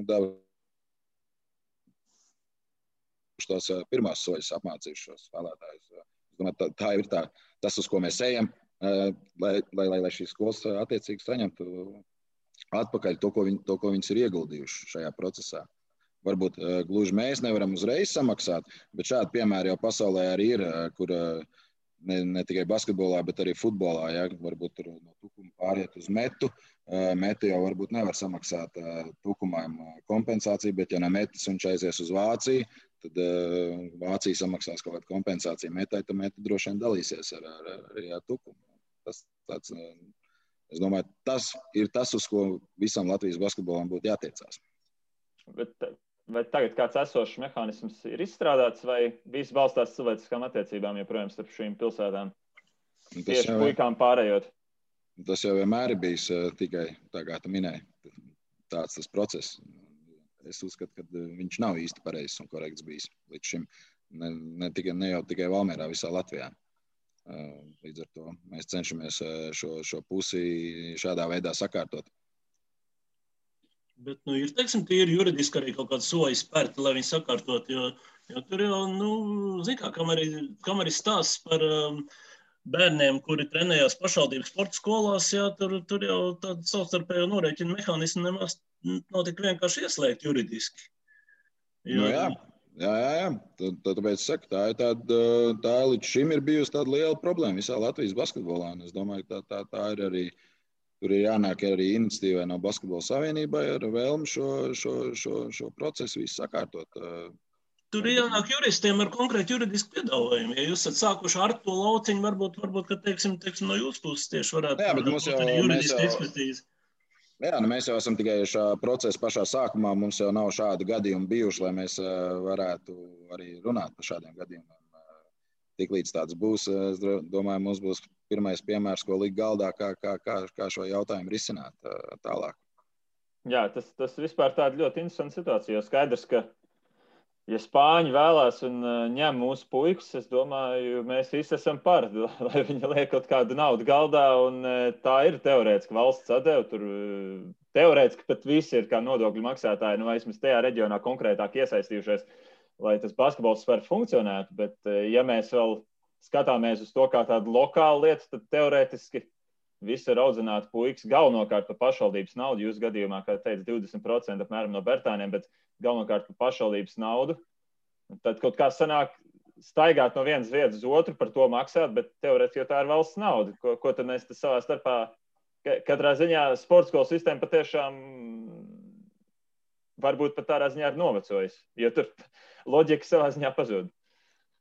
devuši tos pirmās soļus apmācījuši šos spēlētājus. Es domāju, tā ir tas, uz ko mēs ejam, lai šīs skolas attiecīgi saņemtu atpakaļ to, ko viņas ir ieguldījuši šajā procesā. Varbūt gluži mēs nevaram uzreiz samaksāt, bet šādi piemēri jau pasaulē arī ir, kur ne tikai basketbolā, bet arī futbolā. Ja, varbūt tur no Tukuma pāriet uz Metu. Meti jau varbūt nevar samaksāt Tukumam kompensāciju, bet ja no Metas viņš aizies uz Vāciju, tad Vācija samaksās kaut kādu kompensāciju Metai, tad Meta droši vien dalīsies arī ar Tukumu. Es domāju, tas ir tas, uz ko visam Latvijas basketbolam būtu jātiecās.
Vai tagad kāds esošs mehānisms ir izstrādāts, vai viss balstās cilvēciskām attiecībām joprojām starp šīm pilsētām? Tieši puikām pārējot.
Tas jau vienmēr ir bijis tikai, tā kā tu minēji, tāds tas process. Es uzskatu, ka viņš nav īsti pareizs un korekts bijis līdz šim. Ne jau tikai Valmierā, visā Latvijā. Līdz ar to mēs cenšamies šo pusi šādā veidā sakārtot.
Bet, ir, teiksim, tīri juridiski arī kaut kāds soļi spērti, lai viņi sakārtot, jo tur jau, zin kā, kam arī stāsts par bērniem, kuri trenējās pašvaldības sporta skolās, jā, tur jau tāda savstarpējo norēķina mehānismu nemaz nav tik vienkārši ieslēgt juridiski.
Jo... Jā. Tāpēc es saku, tā līdz šim ir bijusi tāda liela problēma visā Latvijas basketbolā. Es domāju, ka tā ir arī. Tur ir jānāk arī iniciatīvai no Basketbola savienībai ar vēlmi šo procesu visu sakārtot.
Tur ir jānāk juristiem ar konkrētu juridisku piedāvājumu. Ja jūs esat sākuši ar to lauciņu, varbūt ka, teiksim, no jūsu puses tieši varētu būt arī juridiska ekspertīze.
Jā, mēs jau esam tikai šā procesa pašā sākumā. Mums jau nav šādi gadījumi bijuši, lai mēs varētu arī runāt par šādiem gadījumiem. Tiklīdz tāds būs, es domāju, mums būs pirmais piemērs, ko likt galdā, kā šo jautājumu risināt tālāk.
Jā, tas vispār tāda ļoti interesanta situācija, jo skaidrs, ka, ja Spāņi vēlās un ņem mūsu puikas, es domāju, mēs visi esam par, lai viņi liek kaut kādu naudu galdā, un tā ir teorētiski valsts atdeva, tur teorētiski pat visi ir kā nodokļu maksātāji, vismaz tajā reģionā konkrētāk iesaistījušies, lai tas basketbols var funkcionēt, bet ja mēs vēl skatāmies uz to kā tādu lokālu lietu, tad teorētiski visi ir audzināti puikas galvenokārt par pašvaldības naudu. Jūs gadījumā, kā teica, 20% apmēram no Bertāniem, bet galvenokārt par pašvaldības naudu. Tad kaut kā sanāk staigāt no vienas vietas uz otru, par to maksāt, bet teorētiski jau tā ir valsts nauda. Ko tad mēs savā starpā, katrā ziņā sporta skolu sistēma patiešām varbūt pat tādā ziņā ir novecojis, jo tur loģika savā ziņā pazūd.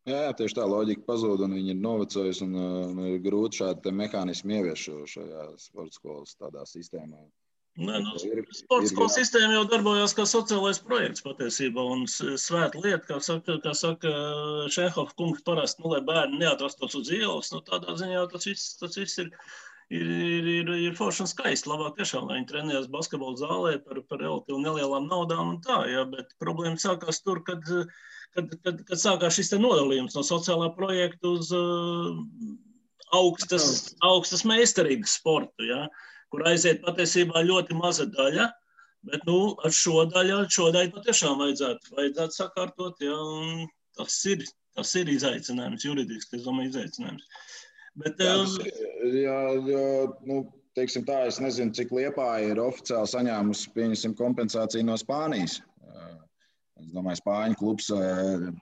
Jā, tieši tā loģika pazūd, un viņi ir novecojusi, un ir grūti šādi mehānismi ievieš šajā sporta skolas tādā sistēmā.
Sporta skolas sistēma jau darbojās kā sociālais projekts patiesībā, un svēta lieta, kā saka Šenhofa kungs parasti, lai bērni neatrastos uz ielas, tādā ziņā tas viss ir forši un skaisti. Labāk tiešām, lai viņi trenējas basketbola zālē par relatīvi nelielām naudām un tā, jā, bet problēma sākās tur, kad sākās šis te nodalījums no sociālā projekta uz augstas meistarības sportu, jā, kur aiziet patiesībā ļoti maza daļa, bet ar šo daļu patiešām vajadzētu sakārtot, jā, un tas ir izaicinājums, juridiski, es domāju, izaicinājums. Bet,
teiksim tā, es nezinu, cik Liepāja ir oficiāli saņēmusi, pieņemsim, kompensāciju no Spānijas. Es domāju, Spāņu klubs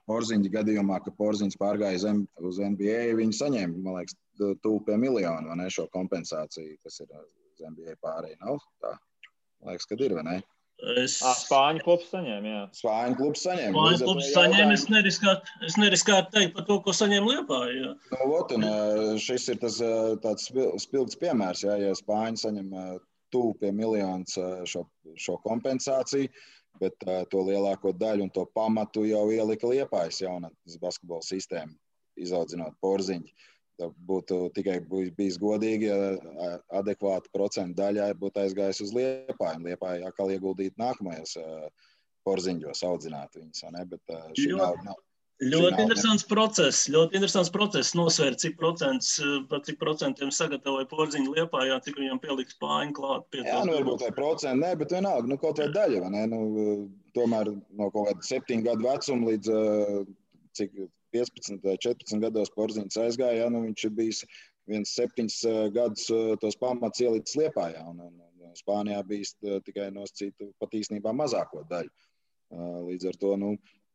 Porziņa gadījumā, ka Porziņš pārgāja uz NBA, viņi saņēma, man liekas, tuvu pie miljonu, vai ne, šo kompensāciju, kas ir uz NBA pārēj, nav tā? Man liekas, kad ir, vai ne?
Spāņu klubs saņēma, jā.
Spāņu klubs saņēma.
Spāņu klubs saņēma, es neriskētu teikt par to, ko saņēma Liepāja, jā.
Šis ir tāds spilgts piemērs, jā, ja Spāņi saņem tuvu pie miljonus šo kompensāciju, bet to lielāko daļu un to pamatu jau ielika Liepājas jaunatnes basketbola sistēma, izaudzinot Porziņu. Būtu tikai bijis godīgi, ja adekvāta procentu daļā būtu aizgājis uz Liepāju. Liepāju atkal ieguldīt nākamajos Porziņos, audzināt viņus, ne? Bet šī nav.
Ļoti interesants process nosvērt, par cik procentiem sagatavoja Porziņu Liepājā, cik viņam pieliks Spāņu klāt.
Jā, varbūt vai procenti, ne, bet vienalga, kaut vai daļa, vai ne? Tomēr no kaut kāda 7 gadu vecuma līdz cik 15 vai 14 gados Porziņš aizgāja, viņš ir bijis 7 gadus tos pamats ielicis Liepājā, un Spānijā bijis tikai nosacīta pat īstenībā mazāko daļu. Līdz ar to,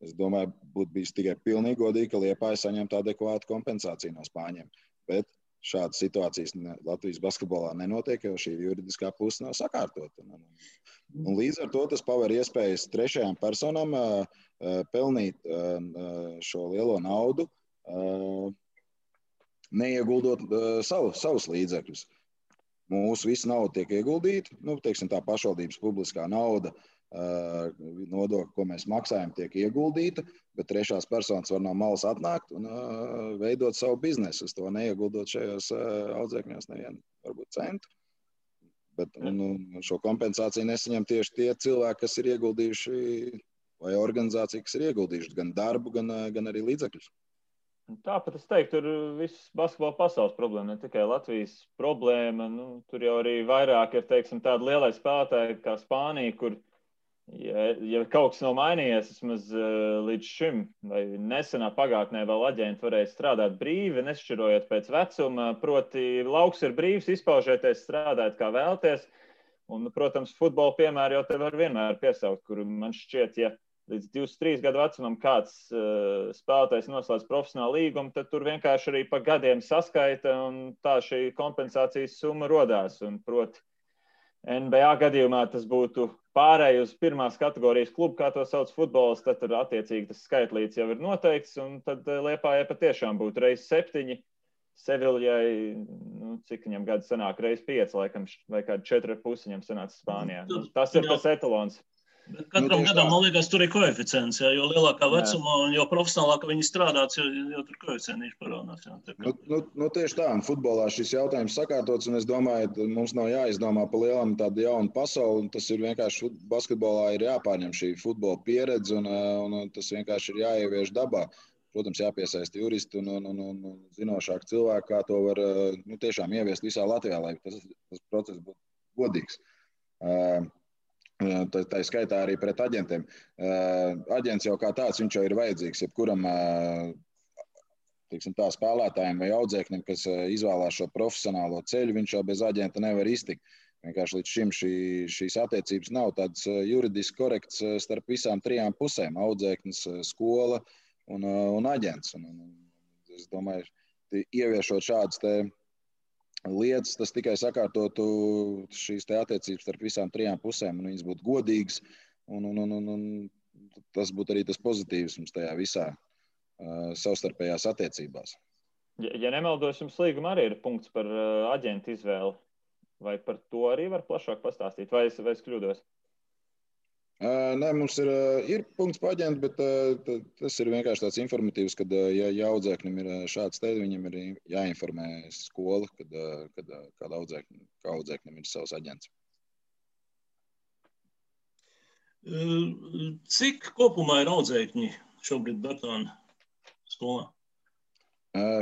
es domāju, būtu bijis tikai pilnīgi godīgi, ka Liepāja saņemtu adekvātu kompensāciju no Spāņiem. Bet šādas situācijas Latvijas basketbolā nenotiek, jo šī juridiskā puse nav sakārtota. Un līdz ar to tas paver iespējas trešajām personām pelnīt šo lielo naudu, neieguldot savus līdzekļus. Mūsu visa nauda tiek ieguldīta, teiksim, tā pašvaldības publiskā nauda, nodokļi, ko mēs maksājam, tiek ieguldīta, bet trešās personas var no malas atnākt un veidot savu biznesu, uz to neieguldot šajos audzēkņos nevienu, varbūt centu. Bet šo kompensāciju nesaņem tieši tie cilvēki, kas ir ieguldījuši, vai organizācija, kas ir ieguldījuši gan darbu, gan arī līdzekļus.
Tāpat es teiktu, tur viss basketbola pasaules problēma, ne tikai Latvijas problēma. Tur jau arī vairāk ir, teiksim, tādi lielai spēlētāji kā Spānija, kur, ja kaut kas nav mainījies, vismaz līdz šim, vai nesenā pagātnē vēl aģenti varēja strādāt brīvi, nešķirojot pēc vecuma, proti lauks ir brīvs, izpaužieties, strādāt kā vēlties. Un, protams, futbola piemēru jau te var vienmēr piesaukt, kur man šķiet, ja līdz 23 gadu vecumam kāds spēlētājs noslēdz profesionālu līgumu, tad tur vienkārši arī pa gadiem saskaita un tā šī kompensācijas summa rodās. Un, proti, NBA gadījumā tas būtu pārēj uz pirmās kategorijas klubu, kā to sauc futbols, tad tur attiecīgi tas skaitlīts jau ir noteikts, un tad Liepājai patiešām būtu reiz 7, Seviljai, cik viņam gadu sanāk, reiz 5, laikam, vai kādi 4,5 viņam sanāca Spānijā. Tas ir tas etalons.
Bet katram gadam, man liekas, tur ir koeficients, jo lielākā vecumā un jo profesionālāka viņi strādāts, jo tur koeficienti parādās.
Tieši tā, un futbolā šis jautājums sakārtots, un es domāju, mums nav jāizdomā pa lielam tādu jaunu pasauli, un tas ir vienkārši basketbolā ir jāpārņem šī futbola pieredze, un tas vienkārši ir jāievieš dabā. Protams, jāpiesaista juristi un zinošāki cilvēki, kā to var tiešām ieviest visā Latvijā, lai tas process būtu godīgs. Tā skaitā arī pret aģentiem. Aģents jau kā tāds, viņš jau ir vajadzīgs jebkuram tā, spēlētājiem vai audzēknim, kas izvēlās šo profesionālo ceļu, viņš jau bez aģenta nevar iztikt. Vienkārši līdz šim šīs attiecības nav tādas juridiski korekts starp visām 3 pusēm - audzēknis, skola un aģents. Es domāju, ieviešot šādas lietas, tas tikai sakārtotu šīs attiecības starp visām 3 pusēm, un viņas būtu godīgas, un tas būtu arī tas pozitīvs mums tajā visā savstarpējās attiecībās.
Ja nemaldos, jums līgumā arī ir punkts par aģentu izvēli, vai par to arī var plašāk pastāstīt, vai es kļūdos?
Nē, mums ir punkts par aģentu, bet tas ir vienkārši tāds informatīvs, kad ja audzēknim ir šāds te, viņam ir jāinformē skola, kad audzēknim ir savs aģents.
Cik kopumā ir audzēkņi šobrīd Bertāna skolā?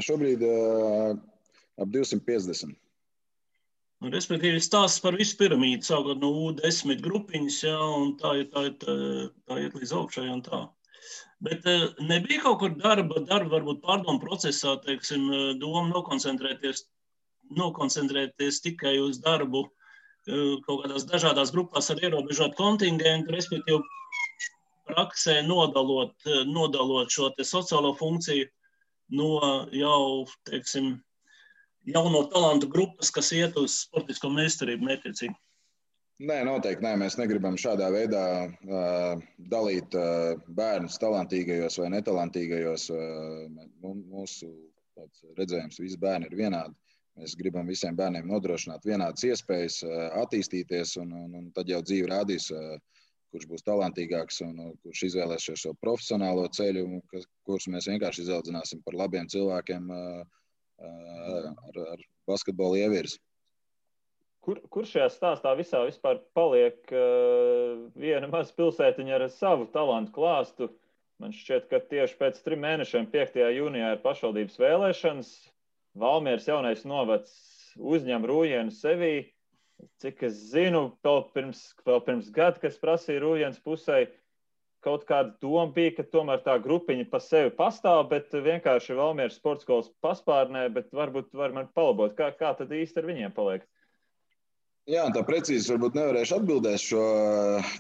Šobrīd ap 250.
Respektīvi, stāsts par visu piramīdu, sākot no U10 grupiņas, un tā iet līdz augšai un tā. Bet nebija kaut kur darba varbūt pārdomu procesā, teiksim, doma nokoncentrēties tikai uz darbu kaut kādās dažādās grupās ar ierobežotu kontingentu, respektīvi praksē nodalot šo te sociālo funkciju no jau, teiksim, jauno talantu grupas, kas iet uz sportisko meistarību mērķiecīgi?
Nē, noteikti nē. Mēs negribam šādā veidā dalīt bērnus talantīgajos vai netalantīgajos. Mūsu redzējums, visi bērni ir vienādi. Mēs gribam visiem bērniem nodrošināt vienādas iespējas attīstīties, un tad jau dzīve rādīs, kurš būs talantīgāks un kurš izvēlēsies šo profesionālo ceļu, kurus mēs vienkārši izaudzināsim par labiem cilvēkiem ar basketbolu ievirzi.
Kur šajā stāstā visā vispār paliek viena maza pilsētiņa ar savu talantu klāstu? Man šķiet, ka tieši pēc 3 mēnešiem 5. jūnijā ir pašvaldības vēlēšanas. Valmieras jaunais novads uzņem Rūjienu sevī. Cik es zinu, vēl pirms gada, kas prasīja Rūjienas pusē, kaut kāda doma bija, ka tomēr tā grupiņa pa sevi pastāv, bet vienkārši Valmieras sportskolas paspārnē, bet varbūt var man palabot, kā tad īsti ar viņiem paliek?
Jā, tā precīzi varbūt nevarēšu atbildēt šo,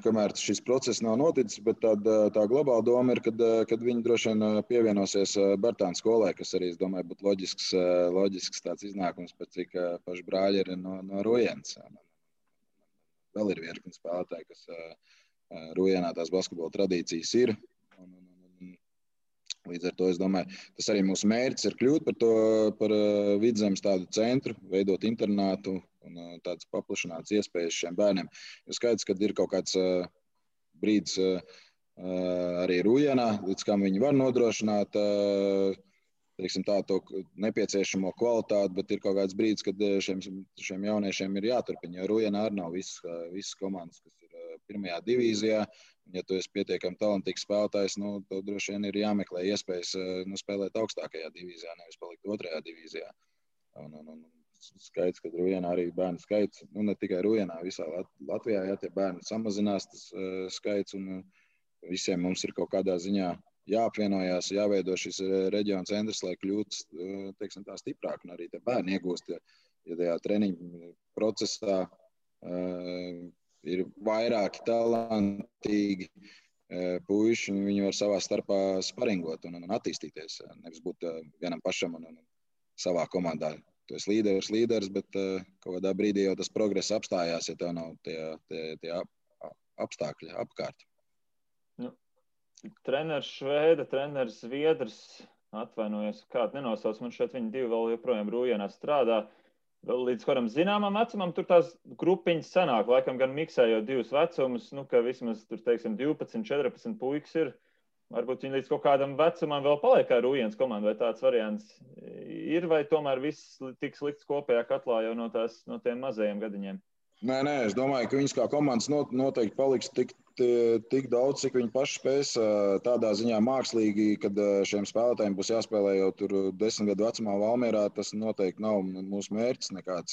kamēr šis process nav noticis, bet tā globāla doma ir, kad viņi droši vien pievienosies Bartāna skolai, kas arī, es domāju, būtu loģisks tāds iznākums, pēc cik paši brāļi ir no Rujens. Vēl ir virkni spēlētāji, kas Rujenā tās basketbola tradīcijas ir. Līdz ar to, es domāju, tas arī mūsu mērķis ir kļūt par Vidzemes tādu centru, veidot internātu un tādas paplašinātas iespējas šiem bērniem. Jo skaidrs, ka ir kaut kāds brīdis arī Rujenā, līdz kam viņi var nodrošināt teiksim, to nepieciešamo kvalitāti, bet ir kaut kāds brīdis, kad šiem jauniešiem ir jāturpina, jo Rujenā arī nav visas komandas, kas ir pirmajā divīzijā. Ja tu esi pietiekami talantīgs spēlētājs, tad droši vien ir jāmeklē iespējas spēlēt augstākajā divīzijā, nevis palikt otrajā divīzijā. Skaidrs, ka Rujenā arī bērnu skaits, ne tikai Rujenā, visā Latvijā, ja tie bērni samazinās tas skaits, un visiem mums ir kaut kādā ziņā jāapvienojās, jāveido šis reģiona centrs, lai kļūtu, teiksim, tā stiprāk, un arī tie bērni iegūst, ja tajā treniņu procesā ir vairāki talantīgi puiši, un viņi var savā starpā sparingot un attīstīties. Nevis būt vienam pašam un savā komandā. Tu esi līderis, bet kaut kādā brīdī jau tas progress apstājās, ja tev nav tie apstākļi apkārt.
Treneris Švēda, treneris Zviedrs, atvainojos, kādu nenosauc, man šeit viņi divi vēl joprojām Rujenā strādā. Līdz kādam zināmam vecumam tur tās grupiņas sanāk, laikam gan miksējot divus vecumus, ka vismaz tur, teiksim, 12, 14 puikas ir. Varbūt viņi līdz kaut kādam vecumam vēl paliek kā Rujens komanda, vai tāds variants ir, vai tomēr viss tiks likts kopējā katlā jau no tiem mazajiem gadiņiem?
Nē, es domāju, ka viņas kā komandas noteikti paliks tik daudz, cik viņi paši spēs tādā ziņā mākslīgi, kad šiem spēlētājiem būs jāspēlē jau tur 10 gadu vecumā Valmierā. Tas noteikti nav mūsu mērķis nekāds.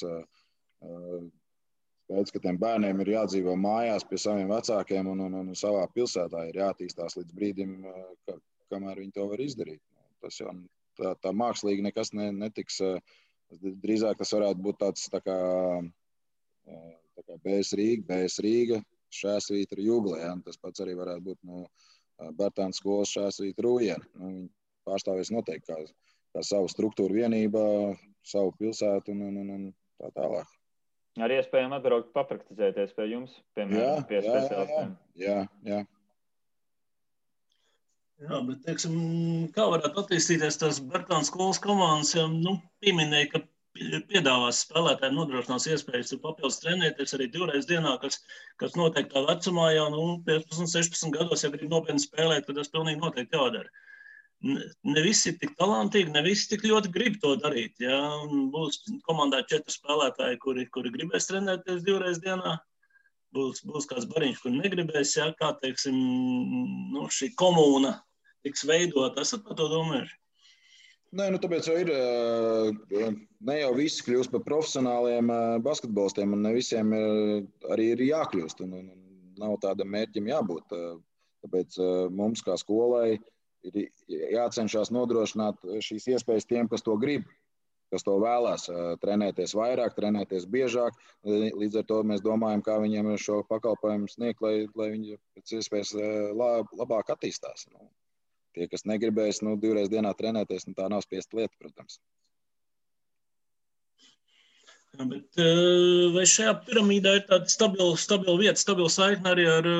Skaidrs, ka tiem bērniem ir jādzīvo mājās pie saviem vecākiem un savā pilsētā ir jātīstās līdz brīdim, kamēr viņi to var izdarīt. Tas jau tā mākslīgi nekas netiks. Drīzāk tas varētu būt tāds tā kā BS Rīga, Šēsvītra Jugle. Ja? Tas pats arī varētu būt no Bartāna skolas Šēsvītra Rujena. Viņi pārstāvēs noteikti kā savu struktūru vienībā, savu pilsētu un tā tālāk.
Arī iespējami atbraukt papraktizēties pie jums, piemēram, pie speciālistiem.
Jā.
Jā, bet, teiksim, kā varētu attīstīties tās Bartāna skolas komandas, ja, pieminēja, ka piedāvās spēlētājiem nodrošinās iespējas papildus trenēties arī 2 reizes dienā, kas noteiktā vecumā jau 15, 16 gados, ja grib nopietni spēlēt, tad tas pilnīgi noteikti jādara. Ne visi ir tik talantīgi, ne visi tik ļoti grib to darīt. Ja? Būs komandā 4 spēlētāji, kuri gribēs trenēties 2 reizes dienā. Būs kāds bariņš, kur negribēs, ja? Kā, teiksim, šī komūna tiks veidot. Esat par to domājuši?
Nē, tāpēc jau ir, ne jau visi kļūst par profesionāliem basketbolistiem, un ne visiem arī ir jākļūst, un nav tādam mērķim jābūt. Tāpēc mums kā skolai ir jācenšas nodrošināt šīs iespējas tiem, kas to grib, kas to vēlās, trenēties vairāk, trenēties biežāk. Līdz ar to mēs domājam, kā viņiem šo pakalpojumu sniegt, lai viņi pēc iespējas labāk attīstās. Tie, kas negribēs 2 reizes dienā trenēties, tā nav spiesta lieta, protams.
Jā, bet vai šajā piramīdā ir tāda stabila vieta, stabila saikne arī ar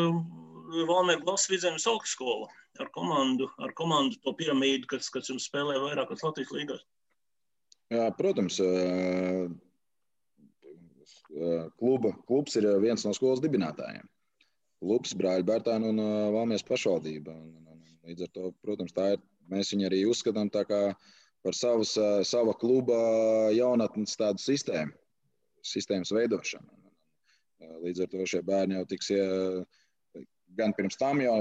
Valmieru Glasas Vidzemes augstskolu, ar komandu to piramīdu, kas jums spēlē vairākas Latvijas līgās?
Jā, protams. Klubs ir viens no skolas dibinātājiem. Klubs, Brāļu Bartāna un Valmieras pašvaldība. Līdz ar to, protams, mēs viņu arī uzskatām tā kā par sava kluba jaunatnes tādu sistēmas veidošanu. Līdz ar to šie bērni jau tiks gan pirms tam jau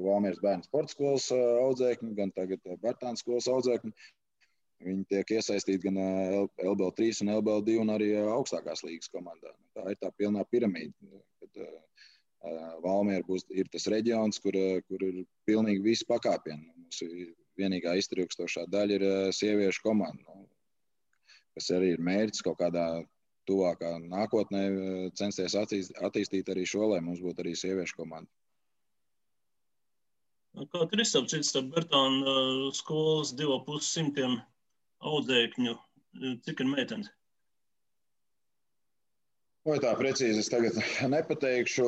Valmieras bērnu sporta skolas audzēkņi, gan tagad Bartāna skolas audzēkņi. Viņi tiek iesaistīti gan LBL 3 un LBL 2 un arī augstākās līgas komandā. Tā ir tā pilnā piramīda. Valmiera ir tas reģions, kur ir pilnīgi visi pakāpieni. Mūsu vienīgā iztrūkstošā daļa ir sieviešu komanda, kas arī ir mērķis kaut kādā tuvākā nākotnē censties attīstīt arī šo, lai mums būtu arī sieviešu komanda.
Kā tur izsapcīt starp Bertāna skolas 2,5 audzēkņu? Cik ir meitenes?
Vai tā precīzi es tagad nepateikšu.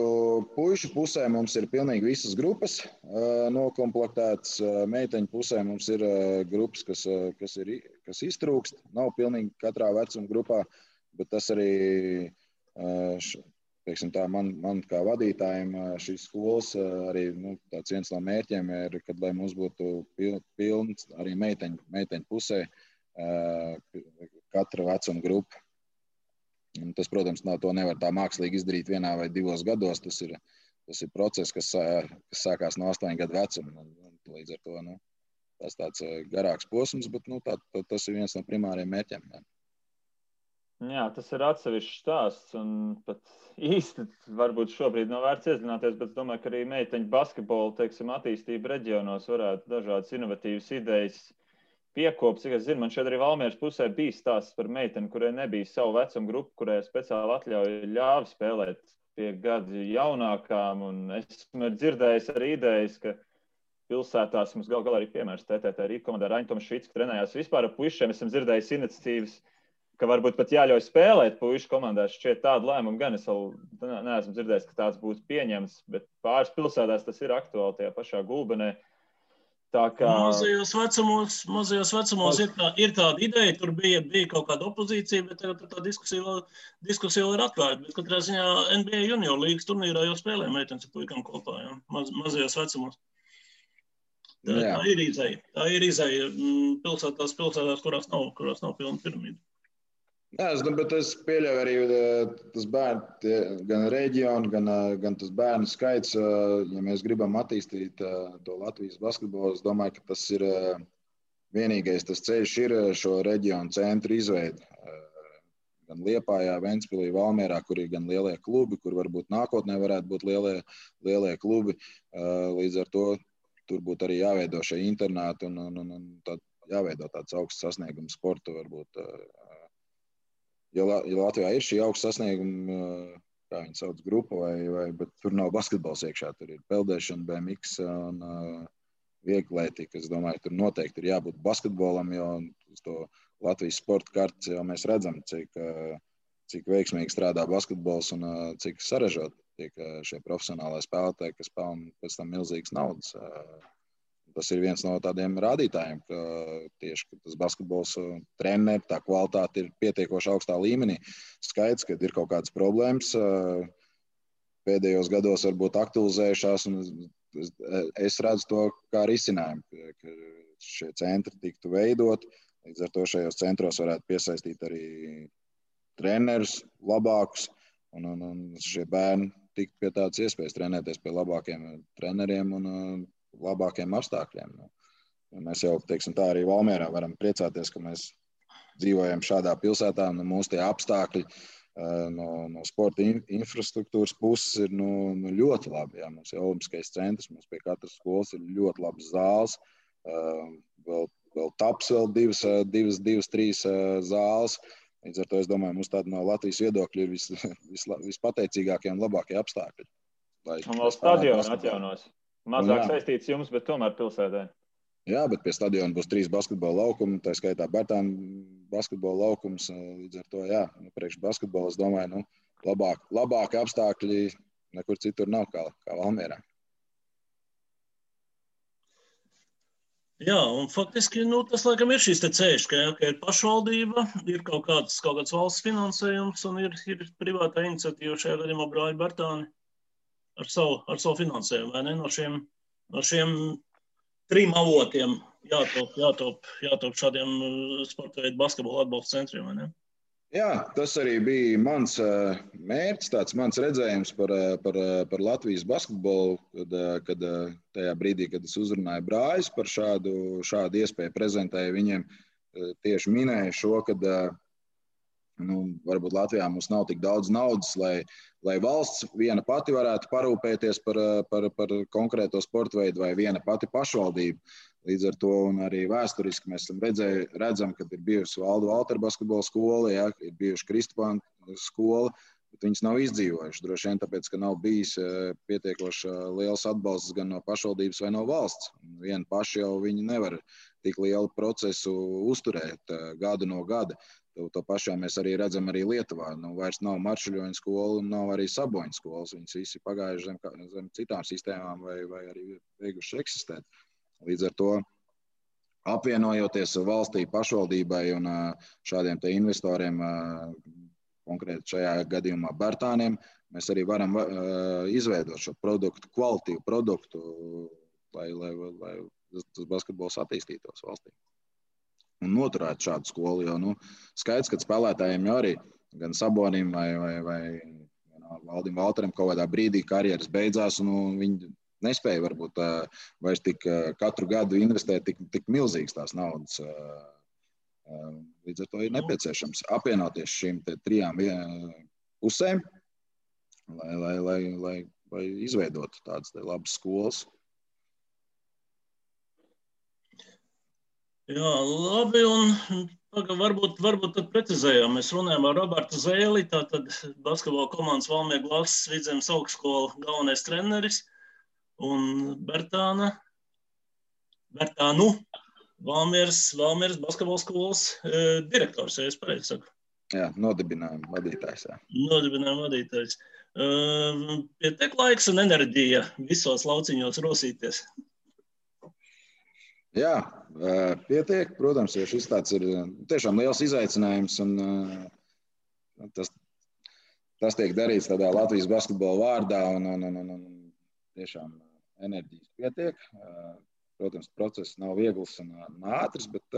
Puišu pusē mums ir pilnīgi visas grupas nokomplektētas. Meiteņu pusē mums ir grupas, kas iztrūkst. Nav pilnīgi katrā vecuma grupā, bet tas arī, teiksim tā, man kā vadītājiem šīs skolas arī tāds viens no mērķiem ir, kad lai mums būtu pilns arī meiteņu pusē katra vecuma grupa. Tas, protams, to nevar tā mākslīgi izdarīt 1 vai 2 gados. Tas ir process, kas sākās no 8 gadu vecuma. Līdz ar to tas tāds garāks posms, bet tas ir viens no primāriem mērķiem.
Jā, tas ir atsevišķs stāsts. Un pat īsti varbūt šobrīd nav vērts iedzināties, bet es domāju, ka arī meiteņu basketbolu, teiksim, attīstība reģionos varētu dažādas inovatīvas idejas piekopt. Cik es zinu, man šeit arī Valmieras pusē bija stāsts par meiteni, kurai nebija savu vecumu grupu, kurai speciāli ļāva spēlēt pie gadu jaunākām. Un esmu dzirdējis arī idejas, ka pilsētās mums galā arī piemērs TTT Rīga komandā Raņtoms Švits, ka trenējās vispār ar puišiem. Esam dzirdējis iniciatīvas, ka varbūt pat jāļauj spēlēt puišu komandās. Šķiet tādu lēmumu gan es vēl neesmu dzirdējis, ka tāds būtu pieņems, bet pāris pilsētās tas ir aktuāli tajā pašā Gulbenē.
Mazajos vecumos ir tāda ideja, tur bija kaut kāda opozīcija, bet tagad tā diskusija vēl ir atklāta. Bet katrā ziņā NBA junior līgas turnīrā jau spēlē meitenes ar puikām kopā, jā, mazajos vecumos. Tā ir izeja. Tā ir izeja pilsētās, kurās nav pilna piramīda.
Jā, bet es pieļauju arī tas bērnu, gan reģionu, gan tas bērnu skaits. Ja mēs gribam attīstīt to Latvijas basketbolu, es domāju, ka tas ir vienīgais tas ceļš ir šo reģionu centru izveidi. Gan Liepājā, Ventspilī, Valmierā, kur ir gan lielie klubi, kur varbūt nākotnē varētu būt lielie klubi. Līdz ar to tur būtu arī jāveido šie internāti un jāveido tāds augsts sasniegums sporta varbūt. Ja Latvijā ir šī augsta sasnieguma, kā viņi sauc, grupa, bet tur nav basketbols iekšā. Tur ir peldēšana, BMX un vieglietība. Es domāju, tur noteikti ir jābūt basketbolam, jo uz to Latvijas sporta kartes jau mēs redzam, cik veiksmīgi strādā basketbols un cik sarežot tiek šie profesionālai spēlētāji, kas pelna pēc tam milzīgas naudas. Tas ir viens no tādiem rādītājiem, ka tieši tas basketbols treneri, tā kvalitāte ir pietiekoši augstā līmenī. Skaidrs, ka ir kaut kādas problēmas. Pēdējos gados varbūt aktualizējušās, un es redzu to kā risinājumu, ka šie centri tiktu veidot. Līdz ar to šajos centros varētu piesaistīt arī trenerus labākus, un šie bērni tikt pie tādas iespējas trenēties pie labākiem treneriem un labākiem apstākļiem. Mēs jau, teiksim tā, arī Valmierā varam priecāties, ka mēs dzīvojam šādā pilsētā, un mūsu tie apstākļi no sporta infrastruktūras puses ir ļoti labi. Jā. Mums ir olimpiskais centrs, mums pie katras skolas ir ļoti labs zāles, vēl taps vēl divas, trīs zāles. Līdz ar to es domāju, mums tāda no Latvijas viedokļa ir vispateicīgākie un labākie apstākļi.
Un vēl stadionu atjaunos. Mazāk saistīts jums, bet tomēr pilsētā.
Jā, bet pie stadiona būs 3 basketbola laukumi, tā skaitā Bertāna basketbola laukums. Līdz ar to, jā, priekš basketbola, es domāju, labāki apstākļi nekur citur nav kā Valmierā.
Jā, un faktiski tas laikam ir šis te ceļš, ka ir pašvaldība, ir kaut kāds valsts finansējums un ir privātā iniciatīva šajā gadījumā brāļi Bertāni. Ar savu finansējumu, vai ne? No šiem 3 avotiem jātop šādiem sporta veidu basketbola atbalsta centriem, vai ne?
Jā, tas arī bija mans mērķis, tāds mans redzējums par Latvijas basketbolu, kad tajā brīdī, kad es uzrunāju brāļus par šādu iespēju prezentēju viņiem, tieši minēju šo, kad varbūt Latvijā mums nav tik daudz naudas, lai valsts viena pati varētu parūpēties par konkrēto sporta veidu vai viena pati pašvaldība. Līdz ar to un arī vēsturiski mēs redzam, ka ir bijusi Valdu Valteru basketbola skola, ja, ir bijuši Kristupānu skola, bet viņas nav izdzīvojušas. Droši vien tāpēc, ka nav bijis pietiekoši liels atbalsts gan no pašvaldības vai no valsts. Vieni paši jau viņi nevar tik lielu procesu uzturēt gadu no gada. To pašā mēs arī redzam arī Lietuvā. Vairs nav Maršuļoņa skola un nav arī Saboņa skolas. Viņas visi pagājuši zem citām sistēmām vai arī beiguši eksistēt. Līdz ar to apvienojoties valstī, pašvaldībai un šādiem te investoriem, konkrēti šajā gadījumā Bertāniem, mēs arī varam izveidot šo produktu, kvalitīvu produktu, lai tas basketbols attīstītos valstī. Un noturēt šādu skolu, jo skaidrs, ka spēlētājiem jau arī gan Sabonim vai Valdim Valteram kaut kādā brīdī karjeras beidzās, un viņi nespēja varbūt vairs tik katru gadu investēt tik milzīgas tās naudas. Līdz ar to ir nepieciešams apvienoties šīm trijām pusēm, lai izveidotu tādas labas skolas.
Jā, labi, un varbūt tad precizējām. Mēs runājam ar Robertu Zēli, tātad basketbola komandas Valmiera Glazas Vidzemes augstskola galvenais treneris, un Bertānu Valmieras basketbola skolas direktors, ja es pareizi saku.
Jā, nodibinājuma vadītājs. Jā.
Nodibinājuma vadītājs. Pietiek laiks un enerģija visos lauciņos rosīties.
Jā, pietiek. Protams, jo šis tāds ir tiešām liels izaicinājums, un tas tiek darīts tādā Latvijas basketbola vārdā, un tiešām enerģijas pietiek. Protams, process nav viegls un ātrs, bet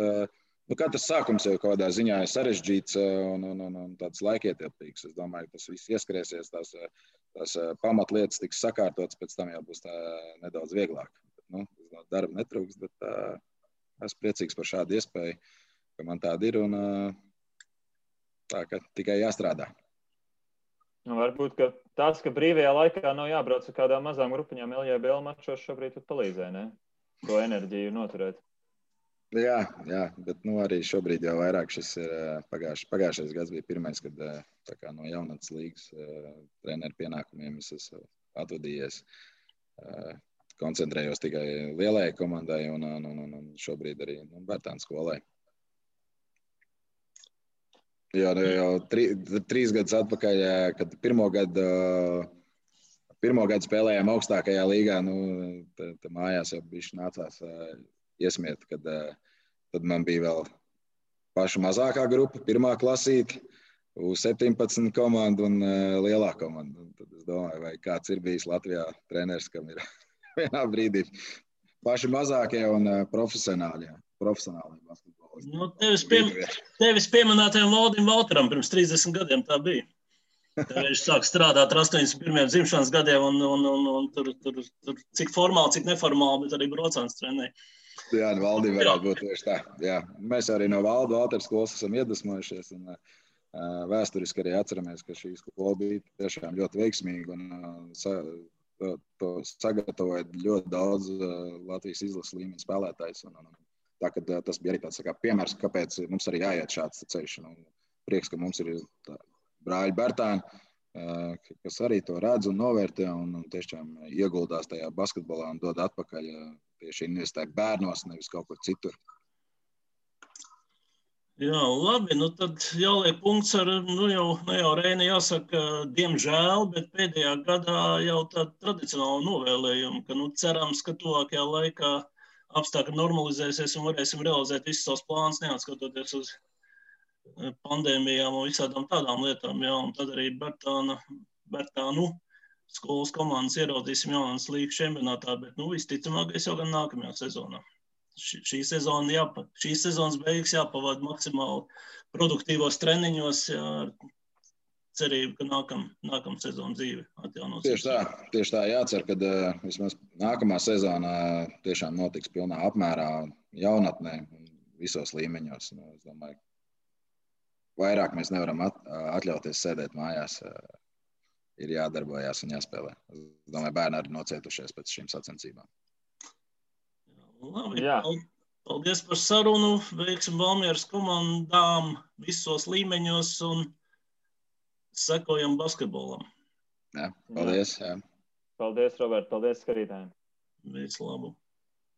katrs sākums jau kādā ziņā ir sarežģīts un tāds laikietilpīgs. Es domāju, ka tas viss ieskrēsies, tās pamatlietas tiks sakārtotas, pēc tam jau būs tā nedaudz vieglāk. Darba netrūks, bet esmu priecīgs par šādu iespēju, ka man tāda ir, un tā, ka tikai jāstrādā.
Varbūt, ka tas, ka brīvajā laikā nav jābrauc ar kādām mazām grupiņām LJBL mačos, šobrīd palīdzē, ne? To enerģiju noturēt.
Jā, bet arī šobrīd jau vairāk šis ir pagājušais gads bija pirmais, kad tā kā no jaunatnes līgas treneru pienākumiem es esmu atvadījies. Koncentrējos tikai lielajai komandai un šobrīd arī Bertānu skolai. Jau 3 gadus atpakaļ, kad pirmo gadu spēlējām augstākajā līgā, tad mājās jau bišķi nācās iesmiet, kad tad man bija vēl paša mazākā grupa, pirmā klasīte, U17 komanda un lielā komanda. Un tad es domāju, vai kāds ir bijis Latvijā treneris, kam ir vienā brīdī paši mazākie un profesionāli basketbolisti.
Tevis pieminētajam Valdim Valteram pirms 30 gadiem tā bija. Viņš sāk strādāt ar 81. dzimšanas gadiem un tur cik formāli, cik neformāli, bet arī brocāns trenēja.
Jā, Valdim varētu būt tieši tā. Jā. Mēs arī no Valdu Valteru skolas esam iedvesmojušies un vēsturiski arī atceramies, ka šī skola bija tiešām ļoti veiksmīga un to sagatavoja ļoti daudz Latvijas izlases līmeņa spēlētājs. Tā, tas bija arī tāds piemērs, kāpēc mums arī jāiet šāds ceļš. Prieks, ka mums ir brāļi Bertāni, kas arī to redz un novērtē un tiešām ieguldās tajā basketbolā un dod atpakaļ tieši investē bērnos, nevis kaut kur citur.
Jā, labi, tad jāliek punkts ar, jau Reini jāsaka, diemžēl, bet pēdējā gadā jau tāda tradicionāla novēlējuma, ka cerams, ka tuvākajā laikā apstākļi normalizēsies un varēsim realizēt visus savus plānus, neatskatoties uz pandēmijām un visādām tādām lietām. Jā, un tad arī Bertānu skolas komandas ieraudzīsim jaunas līgas čempionātā, bet visticamākais jau gan nākamajā sezonā. Šīs sezonas beigas jāpavada maksimāli produktīvos treniņos, ar cerību, ka nākamā sezona dzīve atjaunosies.
Tieši tā jācer, ka vismaz nākamā sezonā tiešām notiks pilnā apmērā jaunatnē visos līmeņos. Es domāju, vairāk mēs nevaram atļauties sēdēt mājās. Ir jādarbojās un jāspēlē. Es domāju, bērni arī nocietušies pēc šīm sacensībām.
Labi,
Jā.
paldies par sarunu, veiksim Valmieras komandām visos līmeņos un sekojam basketbolam.
Jā, paldies. Jā.
Paldies, Robert, paldies skatītājiem.
Visu labu.